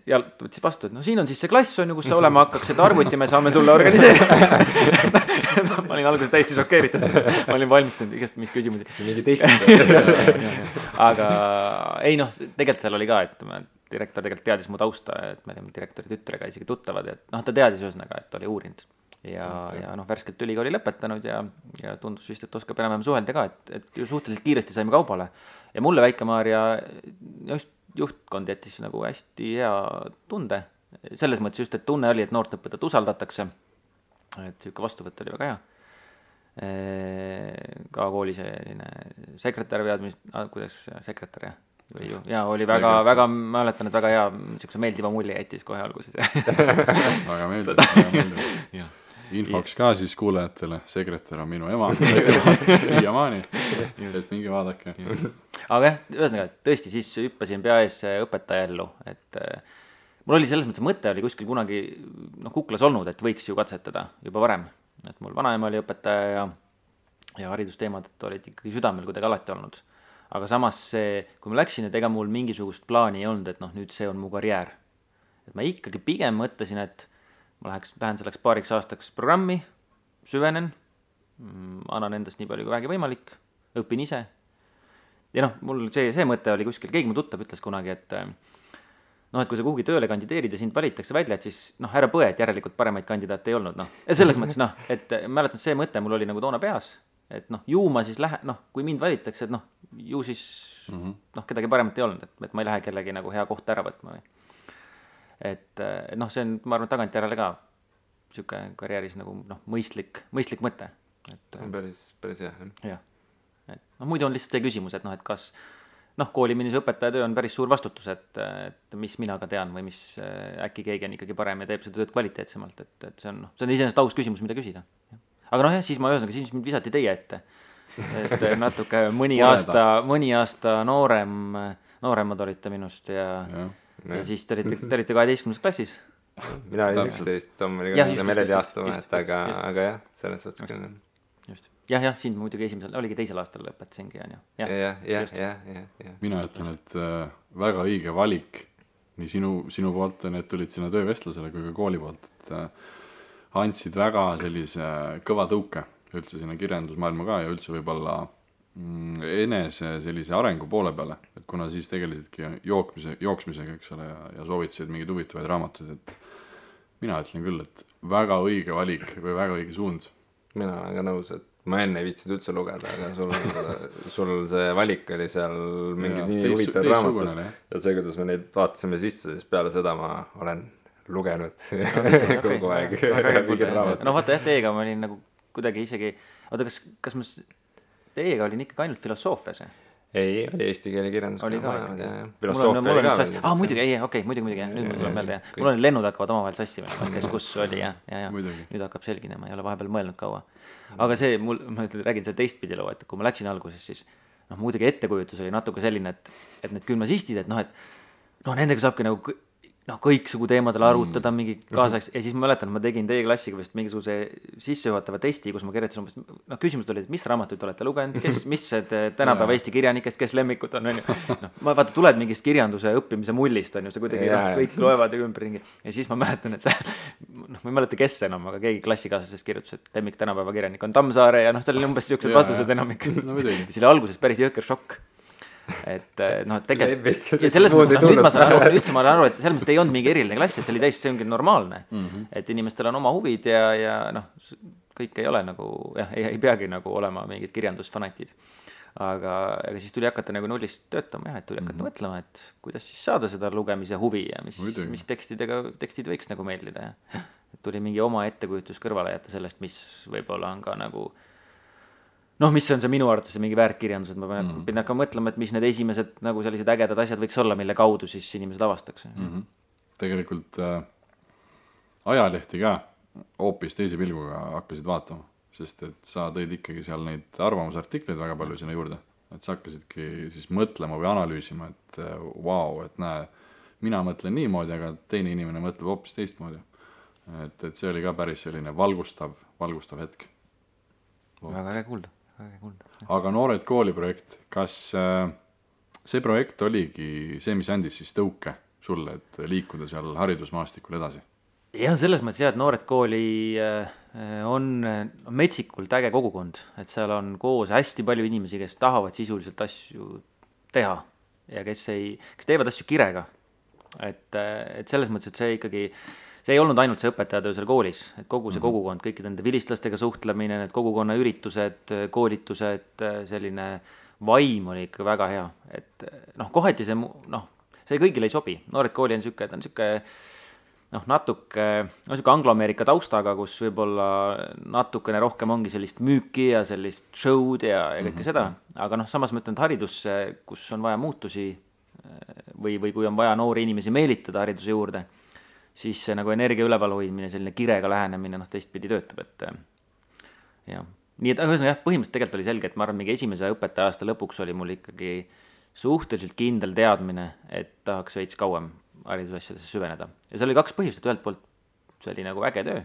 ja võttis vastu, et siin on siis see klass on ju, kus sa olema hakkaks, et arvuti me saame sulle organiseerida. Ma olin alguses täiesti šokeeritud. Ma olin valmistanud igast mis küsimusi. See mingi test. Aga ei tegelikult seal oli ka, et direktor tegelikult teadis mu tausta, et me olime direktori tütrega isegi tuttavad, et ta teadis ühesõnaga, et oli uurinud. Ja värskelt ülikooli lõpetanud ja tundus vist, et oskab enam suhelda ka, et ju suhteliselt kiiresti saime kaubale. Ja mulle Väike-Maarja just juhtkond jättis nagu hästi hea tunde. Selles mõttes just, et tunne oli, et noort õpetajat usaldatakse. Et siuke vastuvõtt oli väga hea. Ka kooli selline sekretär kuidas sekretär ja oli väga, mäletan, et väga hea, siukse meeldiva mulje jättis kohe alguses. Väga meeldib. Infoks ka siis kuulajatele, sekretär on minu ema siiamaani, et minge vaadake. aga jah, ühesõnaga, tõesti, siis hüppasin peaees õpetaja ellu, et mul oli selles mõttes, mõte oli kuskil kunagi kuklas olnud, et võiks ju katsetada juba varem. Et mul vanaema oli õpetaja ja haridusteemad olid ikkagi südamel kuidagi alati olnud. Aga samas see, kui ma läksin, et ega mul mingisugust plaani ei olnud, et nüüd see on mu karjäär. Et ma ikkagi pigem mõtlesin, et ma lähen selleks paariks aastaks programmi, süvenen, annan endast nii palju kui vähegi võimalik, õpin ise. Ja mul see mõte oli kuskil, keegi mu tuttav ütles kunagi, et kui sa kuhugi tööle kandideerid ja sind valitakse välja, et siis ära põe, et järelikult paremaid kandidaate ei olnud. Ja selles mõttes, et mäletan, see mõte mul oli nagu toona peas, et ju ma siis kui mind valitakse, et ju siis kedagi paremat ei olnud, et ma ei lähe kellegi nagu hea kohta ära võtma. Et see on, ma arvan, tagantjärele ka siuke karjääris nagu mõistlik mõte. Päris hea. Jah. Et muidu on lihtsalt see küsimus, et kas kooliminise õpetaja töö on päris suur vastutus, et mis mina ka tean või mis äkki keegi on ikkagi parem ja teeb seda tööd kvaliteetsemalt, et see on iseenesest aus küsimus, mida küsida. Aga siis siis mind visati teie ette, et natuke mõni aasta nooremad olite minust ja siis te olite 12. klassis. Mina olin 11, Tom oli 14 aasta vahet, aga jah, selles suhtes küll. Just. Jah, siin muidugi oligi teisel aastal lõpetasingi, on ju. Jah. Mina ütlen, et väga õige valik nii sinu poolt, need tulid sinna töövestlusele kui ka kooli poolt, et andsid väga sellise kõva tõuke üldse sinna kirjandusmaailma ka ja üldse võib-olla enese sellise arengu poole peale, et kuna siis tegelesidki jooksmisega, eks ole, ja soovitasid mingeid huvitavaid raamatuid, et mina ütlen küll, et väga õige valik või väga õige suund. Mina olen ka nõus, et ma enne ei viitsinud üldse lugeda, aga sul see valik oli seal mingid nii huvitavad raamatud ja see, kuidas me neid vaatasime sisse, siis peale seda ma olen lugenud kogu aeg. Vaata teiega ma olin nagu kuidagi isegi, kas ma teiega olin ikkagi ainult filosoofias? Ei, oli eesti keele kirjandus. Oli ka filosoofia oli ka. Muidugi, nüüd mul tuleb meelde. Mul on lennud hakkavad omavahel sassima, kes kus oli ja nüüd hakkab selginema, ei ole vahepeal mõelnud kaua. Aga ma räägin selle teistpidi loo, et kui ma läksin alguses, siis muidugi ettekujutus oli natuke selline, et need gümnasistid, et nendega saabki nagu kõiksugu teemadel arutada mingi kaasaks ja siis ma mäletan, ma tegin teie klassiga vist mingisuguse sissejuhatava testi, kus ma kirjutasin umbes, küsimused olid, mis raamatuid olete lugenud, mis tänapäeva Eesti kirjanikest, kes lemmikud on, ma vaata, tuled mingist kirjanduse õppimise mullist, on ju, see kuidagi kõik loevad ja ümberringi ja siis ma mäletan, et ma ei mäleta, kes enam, aga keegi klassikaaslasest kirjutas, et lemmik tänapäeva kirjanik on Tammsaare ja seal oli umbes siuksed vastused enamik. Siis oli alguses päris jõhker šokk. Et tegelikult ja selles mõttes, nüüd ma saan aru, et selles mõttes ei olnud mingi eriline klass, et see ongi normaalne, et inimestel on oma huvid ja kõik ei ole nagu, ei peagi nagu olema mingid kirjandusfanatid, aga siis tuli hakata nagu nullist töötama et tuli hakata mõtlema, et kuidas siis saada seda lugemise huvi ja mis tekstid võiks nagu meeldida ja tuli mingi oma ettekujutus kõrvale jätta sellest, mis võib-olla on ka nagu mis on see minu arvates mingi väärtkirjandus, et ma pean hakkama mõtlema, et mis need esimesed nagu sellised ägedad asjad võiks olla, mille kaudu siis inimesed avastaks. Tegelikult ajalehti ka hoopis teise pilguga hakkasid vaatama, sest et sa tõid ikkagi seal neid arvamusartikleid väga palju sinna juurde, et sa hakkasidki siis mõtlema või analüüsima, et vau, et näe, mina mõtlen niimoodi, aga teine inimene mõtleb hoopis teistmoodi. Et see oli ka päris selline valgustav hetk. Väga äge kuulda. Aga Noored kooli projekt, kas see projekt oligi see, mis andis siis tõuke sulle, et liikuda seal haridusmaastikul edasi? Jah, selles mõttes et Noored kooli on metsikult äge kogukond, et seal on koos hästi palju inimesi, kes tahavad sisuliselt asju teha ja kes teevad asju kirega. Et selles mõttes, et see ikkagi see ei olnud ainult see õpetajatöö seal koolis, et kogu see kogukond, kõikide nende vilistlastega suhtlemine, need kogukonna üritused, koolitused, selline vaim oli ikka väga hea. Et kohati see kõigile ei sobi. Noored kooli on siuke natuke angloameerika taustaga, kus võib-olla natukene rohkem ongi sellist müüki ja sellist show'd ja kõike seda. Aga samas ma ütlen, et haridus, kus on vaja muutusi või kui on vaja noori inimesi meelitada hariduse juurde, siis see nagu energia üleval hoidmine, selline kirega lähenemine teistpidi töötab, et jah. Nii et põhimõtteliselt tegelikult oli selge, et ma arvan, mingi esimese õpetaja aasta lõpuks oli mul ikkagi suhteliselt kindel teadmine, et tahaks veits kauem haridusasjadesse süveneda. Ja seal oli 2 põhjust, et ühelt poolt see oli nagu äge töö,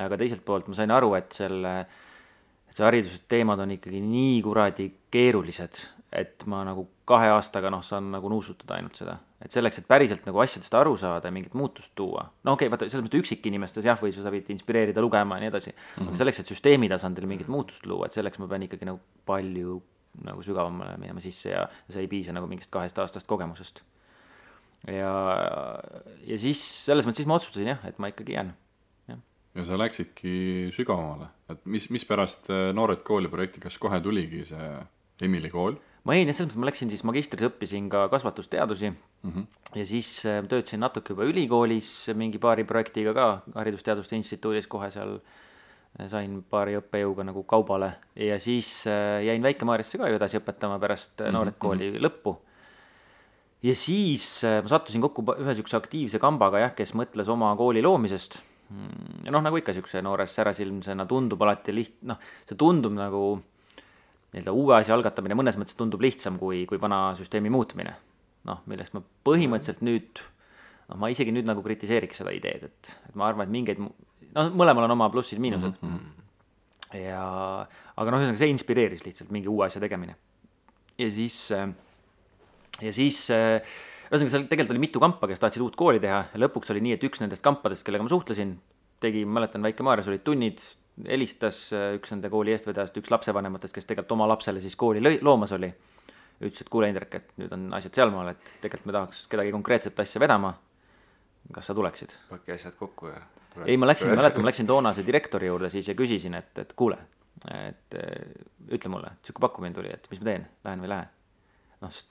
aga teiselt poolt ma sain aru, et see haridusteemad on ikkagi nii kuradi keerulised, et ma nagu 2 aastaga saan nagu nuusutada ainult seda. Et selleks, et päriselt nagu asjadest aru saada ja mingit muutust tuua. No okei, vaata, selles mõttes üksikinimestes jah, või sa võid inspireerida lugema ja nii edasi. Aga selleks, et süsteemi tasandil mingit muutust luua, et selleks ma pean ikkagi nagu palju nagu sügavamale minema sisse ja see ei piisa nagu mingist 2 aastast kogemusest. Ja siis selles mõttes siis ma otsustasin jah, et ma ikkagi jään. Ja sa läksidki sügavamale, et mis pärast Noored kooli projekti, kas kohe tuligi see Emily kool? Ma selles mõttes ma läksin siis magistris, õppisin ka kasvatusteadusi ja siis töötasin natuke juba ülikoolis mingi paari projektiga ka Haridusteaduste Instituudis, kohe seal sain paari õppejõuga nagu kaubale ja siis jäin Väike-Maarjasse ka ju edasi õpetama pärast Noored kooli lõppu. Ja siis ma sattusin kokku ühe sükse aktiivse kambaga jah, kes mõtles oma kooli loomisest. Ja nagu ikka sükse noores särasilmsena tundub alati see tundub nagu uue asja algatamine mõnes mõttes tundub lihtsam kui vana süsteemi muutmine. Millest ma põhimõtteliselt nüüd, ma isegi nüüd nagu kritiseeriks seda ideed, et ma arvan, et mingeid, mõlemal on oma plussid, miinused. Aga ühesõnaga see inspireeris lihtsalt mingi uue asja tegemine. Ja siis ühesõnaga seal tegelikult oli mitu kampa, kes tahtsid uut kooli teha ja lõpuks oli nii, et üks nendest kampadest, kellega ma suhtlesin, mäletan, Väike-Maarjas olid tunnid, helistas üks nende kooli eestvedajast, üks lapsevanematest, kes tegelikult oma lapsele siis kooli loomas oli. Ütles, et kuule Indrek, et nüüd on asjad sealmaal, et tegelikult me tahaks kedagi konkreetset asja vedama. Kas sa tuleksid? Pakki asjad kokku ja... Ei, ma läksin toonase direktori juurde siis ja küsisin, et kuule, et ütle mulle, et siuke pakkumine tuli, et mis ma teen, lähen või lähe.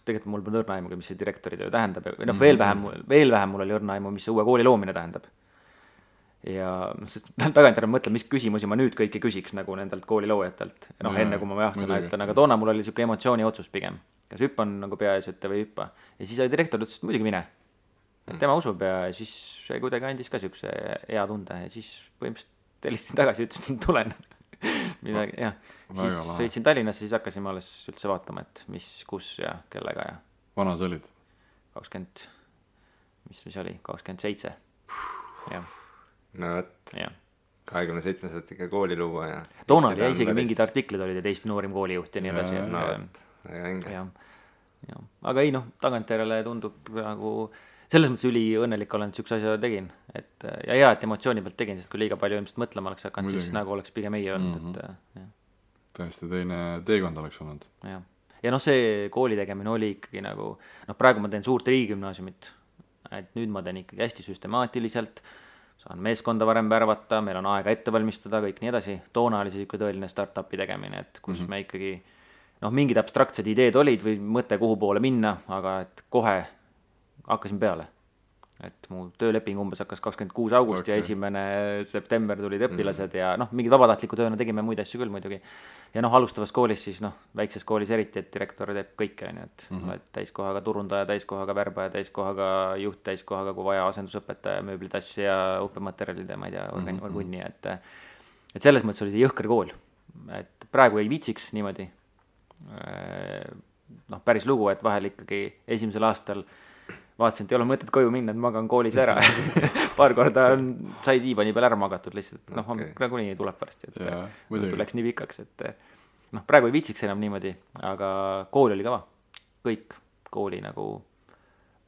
Tegelikult mul pole õrna aimu, mis see direktori töö tähendab. Veel vähem mul oli õrna aimu, mis see uue kooli loomine tähendab. Ja tagantjärele mõtlen, mis küsimusi ma nüüd kõiki küsiks nagu nendelt kooli loojatelt. Enne kui ma sõna ütlen, aga toona mul oli siuke emotsiooni otsus pigem. Kas hüppan nagu peaasjate või hüppa. Ja siis direktor ütles, et muidugi mine. Et tema usub ja siis see kuidagi andis ka siukse hea tunde. Ja siis põhimõtteliselt helistasin tagasi, ütlesin, et tulen. Midagi, jah. Siis sõitsin Tallinnasse, siis hakkasin ma alles üldse vaatama, et mis, kus ja kellega ja... Vana sa olid? 20, mis oli? 27. Jah. No võt, 27 saad ikka kooli luua ja... Toona oli ja isegi mingid artiklid olid, et Eesti noorim koolijuht ja nii edasi. No võt, väga õnge. Aga ei tagantjärele tundub nagu... Selles mõttes üliõnnelik olen, et sükse asja tegin. Ja hea, et emotsiooni pealt tegin, sest kui liiga palju ilmselt mõtlema oleks hakanud, siis nagu oleks pigem ei olnud. Tõesti teine teekond oleks olnud. Ja see kooli tegemine oli ikkagi nagu... praegu ma teen suurt riigigümnaasiumit. Et nüüd ma teen ikkagi hästi süstemaatiliselt, saan meeskonda varem värvata, meil on aega ette valmistada, kõik nii edasi. Toona oli see tõeline start-upi tegemine, et kus me ikkagi... mingid abstraktsed ideed olid või mõte kuhu poole minna, aga et kohe... hakkasin peale, et mu tööleping umbes hakkas 26. august ja 1. september tulid õpilased ja mingid vabatahtliku tööna tegime muid asju küll muidugi. Ja alustavas koolis siis väikses koolis eriti, et direktor teeb kõike, et täiskohaga turundaja, täiskohaga värbaja, täiskohaga juht, täiskohaga kui vaja asendusõpetaja, mööblitass ja õppematerjalide, ma ei tea, orgunni, et selles mõttes oli see jõhker kool, et praegu ei viitsiks niimoodi päris lugu, et vahel ikkagi esimesel aastal vaatasin, et ei ole mõtet koju minna, et magan koolis ära. Paar korda sai diivani peal ära magatud lihtsalt, nagunii tuleb varsti, et tuleks nii pikaks, et praegu ei viitsiks enam niimoodi, aga kool oli kõva. Kõik kooli nagu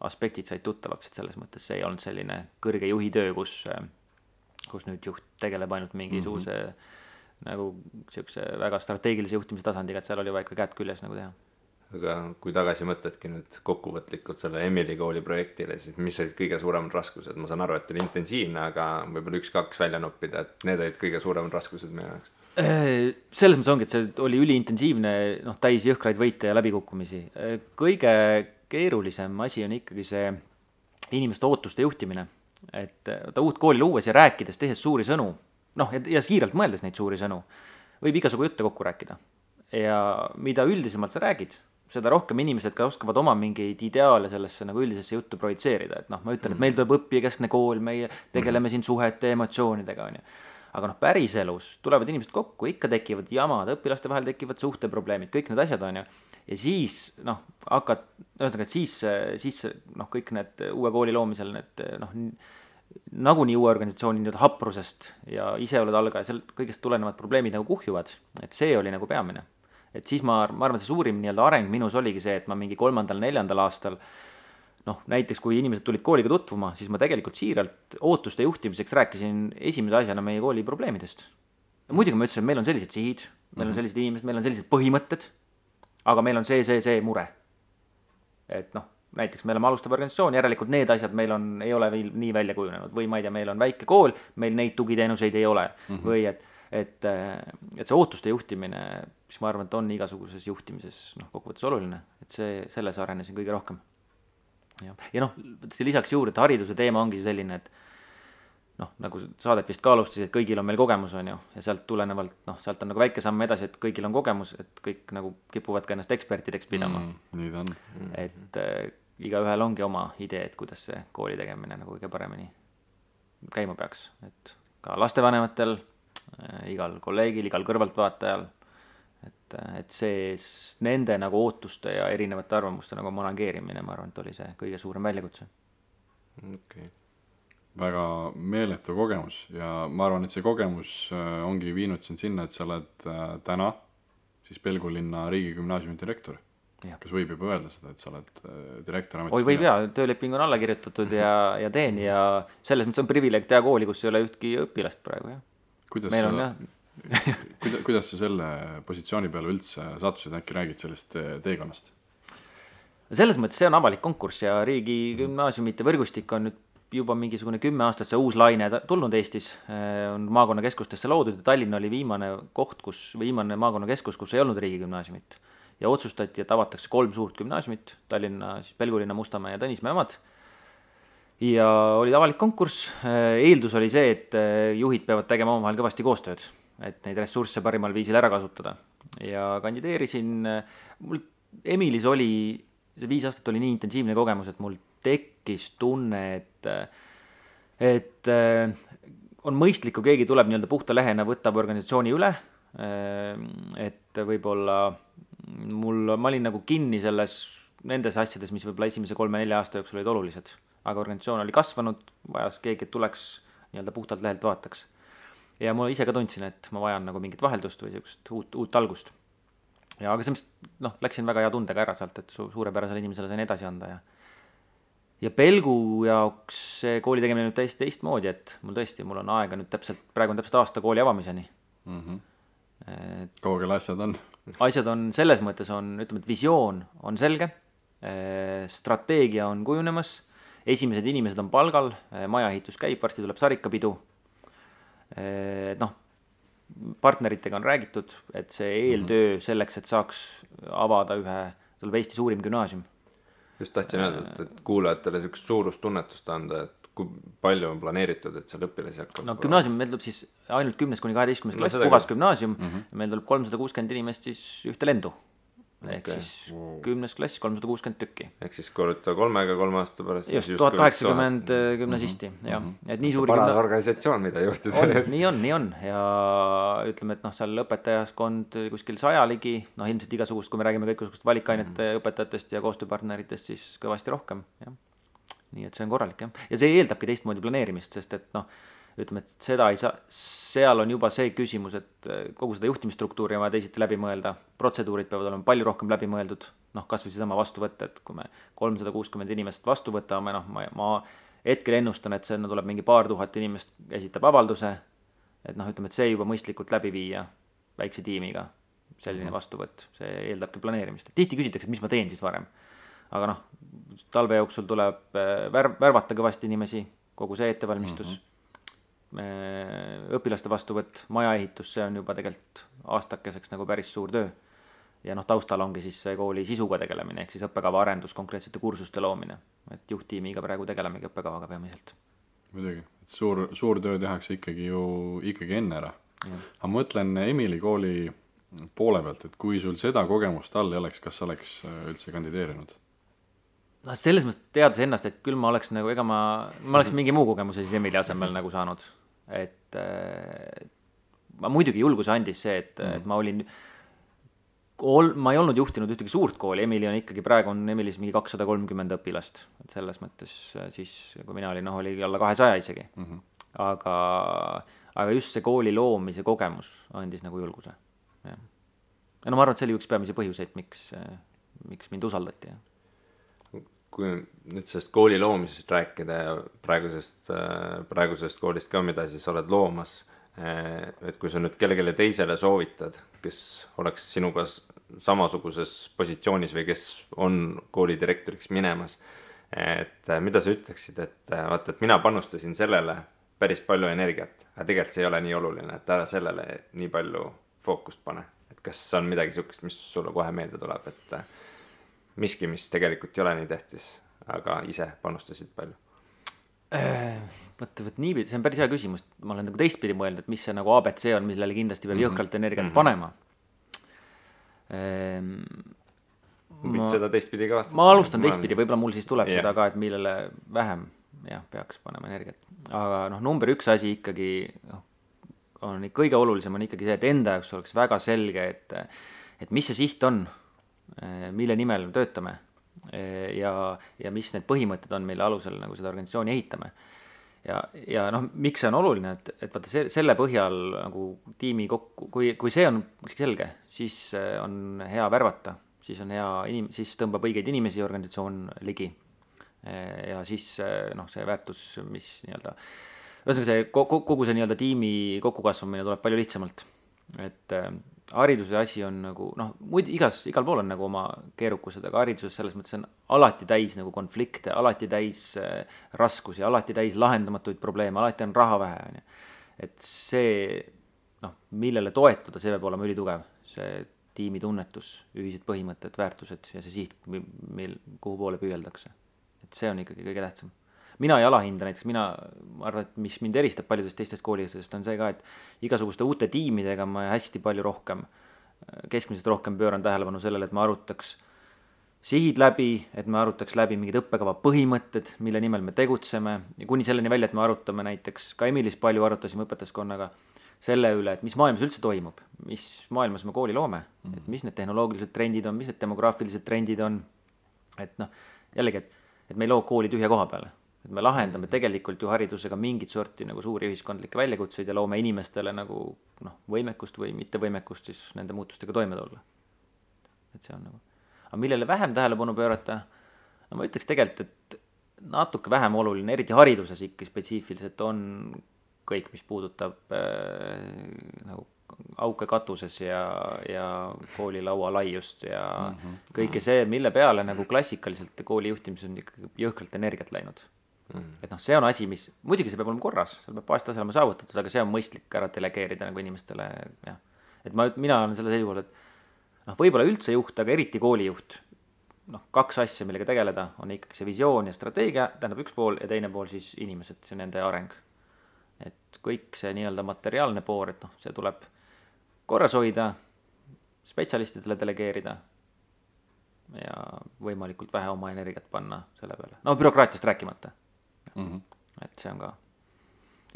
aspektid said tuttavaks, et selles mõttes see ei olnud selline kõrge juhi töö, kus nüüd juht tegeleb ainult mingisuguse nagu siukse väga strateegilise juhtimise tasandiga, et seal oli vaja ikka käed küljes nagu teha. Aga kui tagasi mõtledki nüüd kokkuvõtlikult selle Emily kooli projektile, siis mis olid kõige suuremad raskused? Ma saan aru, et oli intensiivne, aga võib-olla 1-2 välja noppida, et need olid kõige suuremad raskused meie jaoks. Selles mõttes ongi, et see oli üliintensiivne, täis jõhkraid võite ja läbikukkumisi. Kõige keerulisem asi on ikkagi see inimeste ootuste juhtimine. Et uut kooli luues ja rääkides, tehes suuri sõnu, ja siiralt mõeldes neid suuri sõnu, võib igasugu jutte kokku rääkida. Ja mida üldisemalt sa räägid, seda rohkem inimesed ka oskavad oma mingeid ideaale sellesse nagu üldisesse juttu projitseerida, et ma ütlen, et meil tuleb õppijakeskne kool, meie tegeleme siin suhete emotsioonidega, on ju. Aga päris elus tulevad inimesed kokku, ikka tekivad jamad, õpilaste vahel tekivad suhteprobleemid, kõik need asjad on ju. ja siis ühesõnaga, et siis noh, kõik need uue kooli loomisel need noh, nagunii uue organisatsiooni nii-öelda haprusest ja ise oled algaja, seal kõigest tulenevad probleemid nagu kuhjuvad, et see oli nagu peamine. Et siis ma arvan, et see suurim nii-öelda areng minus oligi see, et ma mingi 3.-4. aastal noh, näiteks kui inimesed tulid kooliga tutvuma, siis ma tegelikult siiralt ootuste juhtimiseks rääkisin esimese asjana meie kooli probleemidest. Ja muidugi ma ütlesin, et meil on sellised sihid, meil on sellised inimesed, meil on sellised põhimõtted, aga meil on see mure. Et noh, näiteks me oleme alustav organisatsioon, järelikult need asjad meil ei ole veel nii välja kujunenud või ma ei tea, meil on väike kool, meil neid tugiteenuseid ei ole või et see ootuste juhtimine, mis ma arvan, et on igasuguses juhtimises noh, kokkuvõttes oluline, et selles arenesin kõige rohkem. Ja noh, lisaks juurde, et hariduse teema ongi selline, et noh, nagu saadet vist ka alustas, et kõigil on meil kogemus, on ju, ja sealt tulenevalt, noh, sealt on nagu väike samm edasi, et kõigil on kogemus, et kõik nagu kipuvad ka ennast ekspertideks pidama. Nii ta on. Et igaühel ongi oma idee, et kuidas see kooli tegemine nagu kõige paremini käima peaks, et ka lastevanematel, igal kolleegil, igal kõrvaltvaatajal, et see nende nagu ootuste ja erinevate arvamuste nagu manageerimine, ma arvan, et oli see kõige suurem väljakutse. Okay. Väga meeletu kogemus ja ma arvan, et see kogemus ongi viinud sind sinna, et sa oled täna siis Pelgulinna riigigümnaasiumi direktor. Ja. Kas võib juba öelda seda, et sa oled direktor ametis? Oi, võib tööleping on alla kirjutatud ja teen ja selles mõttes on privileeg teha kooli, kus ei ole ühtki õpilast praegu. Ja. Kuidas sa selle positsiooni peale üldse sattusid, äkki räägid sellest teekonnast? Selles mõttes see on avalik konkurss ja riigigümnaasiumite võrgustik on nüüd juba mingisugune 10 aastat see uus laine tulnud Eestis, on maakonnakeskustesse loodud ja Tallinn oli viimane maakonnakeskus, kus ei olnud riigigümnaasiumit. Ja otsustati, et avatakse 3 suurt gümnaasiumit, Tallinna, siis Pelgulinna, Mustamäe ja Tõnismäe omad. Ja oli avalik konkurss, eeldus oli see, et juhid peavad tegema omavahel kõvasti koostööd, et neid ressursse parimal viisil ära kasutada. Ja kandideerisin, mul Emilis oli, see 5 aastat oli nii intensiivne kogemus, et mul tekkis tunne, et on mõistlik, kui keegi tuleb nii-öelda puhta lehena, võtab organisatsiooni üle, et võib-olla ma olin nagu kinni nendes asjades, mis võib-olla esimese 3-4 aasta jooksul olid olulised, aga organisatsioon oli kasvanud, vajas keegi, et tuleks nii-öelda puhtalt lehelt vaataks. Ja ma ise ka tundsin, et ma vajan nagu mingit vaheldust või sellist uut algust. Ja aga see läksin väga hea tundega ära sealt, et suurepärasele inimesele sain edasi anda ja Pelgu jaoks see kooli tegemine nüüd täiesti teistmoodi, et mul on aega nüüd praegu on täpselt aasta kooli avamiseni. Kaugel asjad on? Asjad on selles mõttes ütleme, et visioon on selge, strateegia on kujunemas, esimesed inimesed on palgal, majaehitus käib, varsti tuleb sarikapidu. Partneritega on räägitud, et see eeltöö selleks, et saaks avada tuleb Eesti suurim gümnaasium. Just tahtsin öelda, et kuulajatele sellist suurustunnetust anda, et kui palju on planeeritud, et seal õpilasi hakkab? Gümnaasium meil tuleb siis ainult 10-12 klass, puhas gümnaasium, meil tuleb 360 inimest siis ühte lendu. Ehk siis 10 klass, 360 tükki. Ehk siis korruta 3-ga 3 aasta pärast. Just, 1080 gümnasisti. Et nii suuri parane organisatsioon, mida juhtida. Nii on. Ja ütleme, et seal õpetajaskond kuskil 100 ligi, ilmselt igasugust, kui me räägime kõikusugust valikainete õpetajatest ja koostööpartneritest, siis kõvasti rohkem. Ja. Nii et see on korralik. Ja see eeldabki teistmoodi planeerimist, sest et ütleme, et seda ei saa, seal on juba see küsimus, et kogu seda juhtimisstruktuuri on vaja teisiti läbi mõelda, protseduurid peavad olema palju rohkem läbi mõeldud, kas või seesama vastu võtta, et kui me 360 inimest vastu võtame, ma hetkel ennustan, et sinna tuleb mingi paar tuhat inimest esitab avalduse, et ütleme, et see juba mõistlikult läbi viia väikse tiimiga, selline vastuvõtt, see eeldabki planeerimist. Tihti küsitakse, et mis ma teen siis varem, aga talve jooksul tuleb värvata kõvasti inimesi, kogu see ettevalmistus, õpilaste vastuvõtt, majaehitus, see on juba tegelikult aastakeseks nagu päris suur töö. Ja taustal ongi siis see kooli sisuga tegelemine, ehk siis õppekava arendus, konkreetsete kursuste loomine. Et juhttiimiga praegu tegelemegi õppekavaga peamiselt. Muidugi, et suur töö tehakse ikkagi enne ära. Aga mõtlen Emili kooli poole pealt, et kui sul seda kogemust all ei oleks, kas oleks üldse kandideerinud? Selles mõttes teades ennast, et küll ma oleks nagu, ma oleks mingi muu kogemuse siis Emili asemel nagu saanud. Et ma muidugi julguse andis see, et ma olin ma ei olnud juhtinud ühtegi suurt kooli, Emily on ikkagi, praegu on Emilis mingi 230 õpilast, et selles mõttes siis, kui mina olin, oli alla 200 isegi. Aga just see kooli loomise kogemus andis nagu julguse. Ja no ma arvan, et see oli üks peamisi põhjuseid, miks mind usaldati. Kui nüüd sellest kooli loomisest rääkida ja praegusest koolist ka, mida siis oled loomas, et kui sa nüüd kellelegi teisele soovitad, kes oleks sinuga samasuguses positsioonis või kes on koolidirektoriks minemas, et mida sa ütleksid, et vaata, et mina panustasin sellele päris palju energiat, aga tegelikult see ei ole nii oluline, et ära sellele nii palju fookust pane. Et kas on midagi sihukest, mis sulle kohe meelde tuleb, et miski, mis tegelikult ei ole nii tähtis, aga ise panustasid palju? Võt nii, see on päris hea küsimus. Ma olen nagu teistpidi mõelnud, et mis see nagu ABC on, millele kindlasti peab jõhkralt energiat panema. Seda teistpidi ka vastata. Ma alustan teistpidi, võib-olla mul siis tuleb seda ka, et millele vähem peaks panema energiat. Aga number üks asi ikkagi on kõige olulisem on ikkagi see, et enda jaoks oleks väga selge, et mis see siht on, mille nimel me töötame ja mis need põhimõtted on, mille alusel nagu seda organisatsiooni ehitame. Ja miks see on oluline, et vaata selle põhjal nagu tiimi kokku, kui see on selge, siis on hea värvata, siis on hea siis tõmbab õigeid inimesi organisatsioon ligi. Ja siis see väärtus, mis ühesõnaga see kogu see tiimi kokkukasvamine tuleb palju lihtsamalt. Et hariduse asi on nagu, igal pool on nagu oma keerukused, aga hariduses selles mõttes on alati täis nagu konflikte, alati täis raskusi, alati täis lahendamatuid probleeme, alati on raha vähe. Et see, millele toetuda, see peab olema ülitugev. See tiimi tunnetus, ühised põhimõtted, väärtused ja see siht, kuhu poole püüeldakse. Et see on ikkagi kõige tähtsam. Mina ei alahinda näiteks, ma arvan, et mis mind eristab paljudest teistest koolidest on see ka, et igasuguste uute tiimidega ma hästi palju rohkem, keskmiselt rohkem pööran tähelepanu sellele, et ma arutaks sihid läbi, et me arutaks läbi mingid õppekava põhimõtted, mille nimel me tegutseme ja kuni selleni välja, et me arutame näiteks, ka Emilis palju arutasime õpetajaskonnaga selle üle, et mis maailmas üldse toimub, mis maailmas me kooli loome, et mis need tehnoloogilised trendid on, mis need demograafilised trendid on, et jällegi, et me ei loo kooli tühja koha peale. Et me lahendame tegelikult ju haridusega mingit sorti nagu suuri ühiskondlikke väljakutseid ja loome inimestele nagu võimekust või mittevõimekust siis nende muutustega toime tulla. Et see on nagu. Aga millele vähem tähelepanu pöörata, ma ütleks tegelikult, et natuke vähem oluline, eriti hariduses ikka spetsiifiliselt on kõik, mis puudutab nagu auke katuses ja koolilaua laiust ja kõike see, mille peale nagu klassikaliselt kooli juhtimises on ikka jõhkralt energiat läinud. Et see on asi, mis, muidugi see peab olema korras, seal peab baastasel olema saavutatud, aga see on mõistlik ära delegeerida nagu inimestele, jah. Et mina olen selle seisukohal, et võib-olla üldse juht, aga eriti koolijuht, kaks asja, millega tegeleda, on ikkagi see visioon ja strateegia, tähendab üks pool ja teine pool siis inimesed, see nende areng. Et kõik see nii-öelda materiaalne pool, et see tuleb korras hoida, spetsialistidele delegeerida ja võimalikult vähe oma energiat panna selle peale. Bürokraatiast rääkimata. Et see on ka.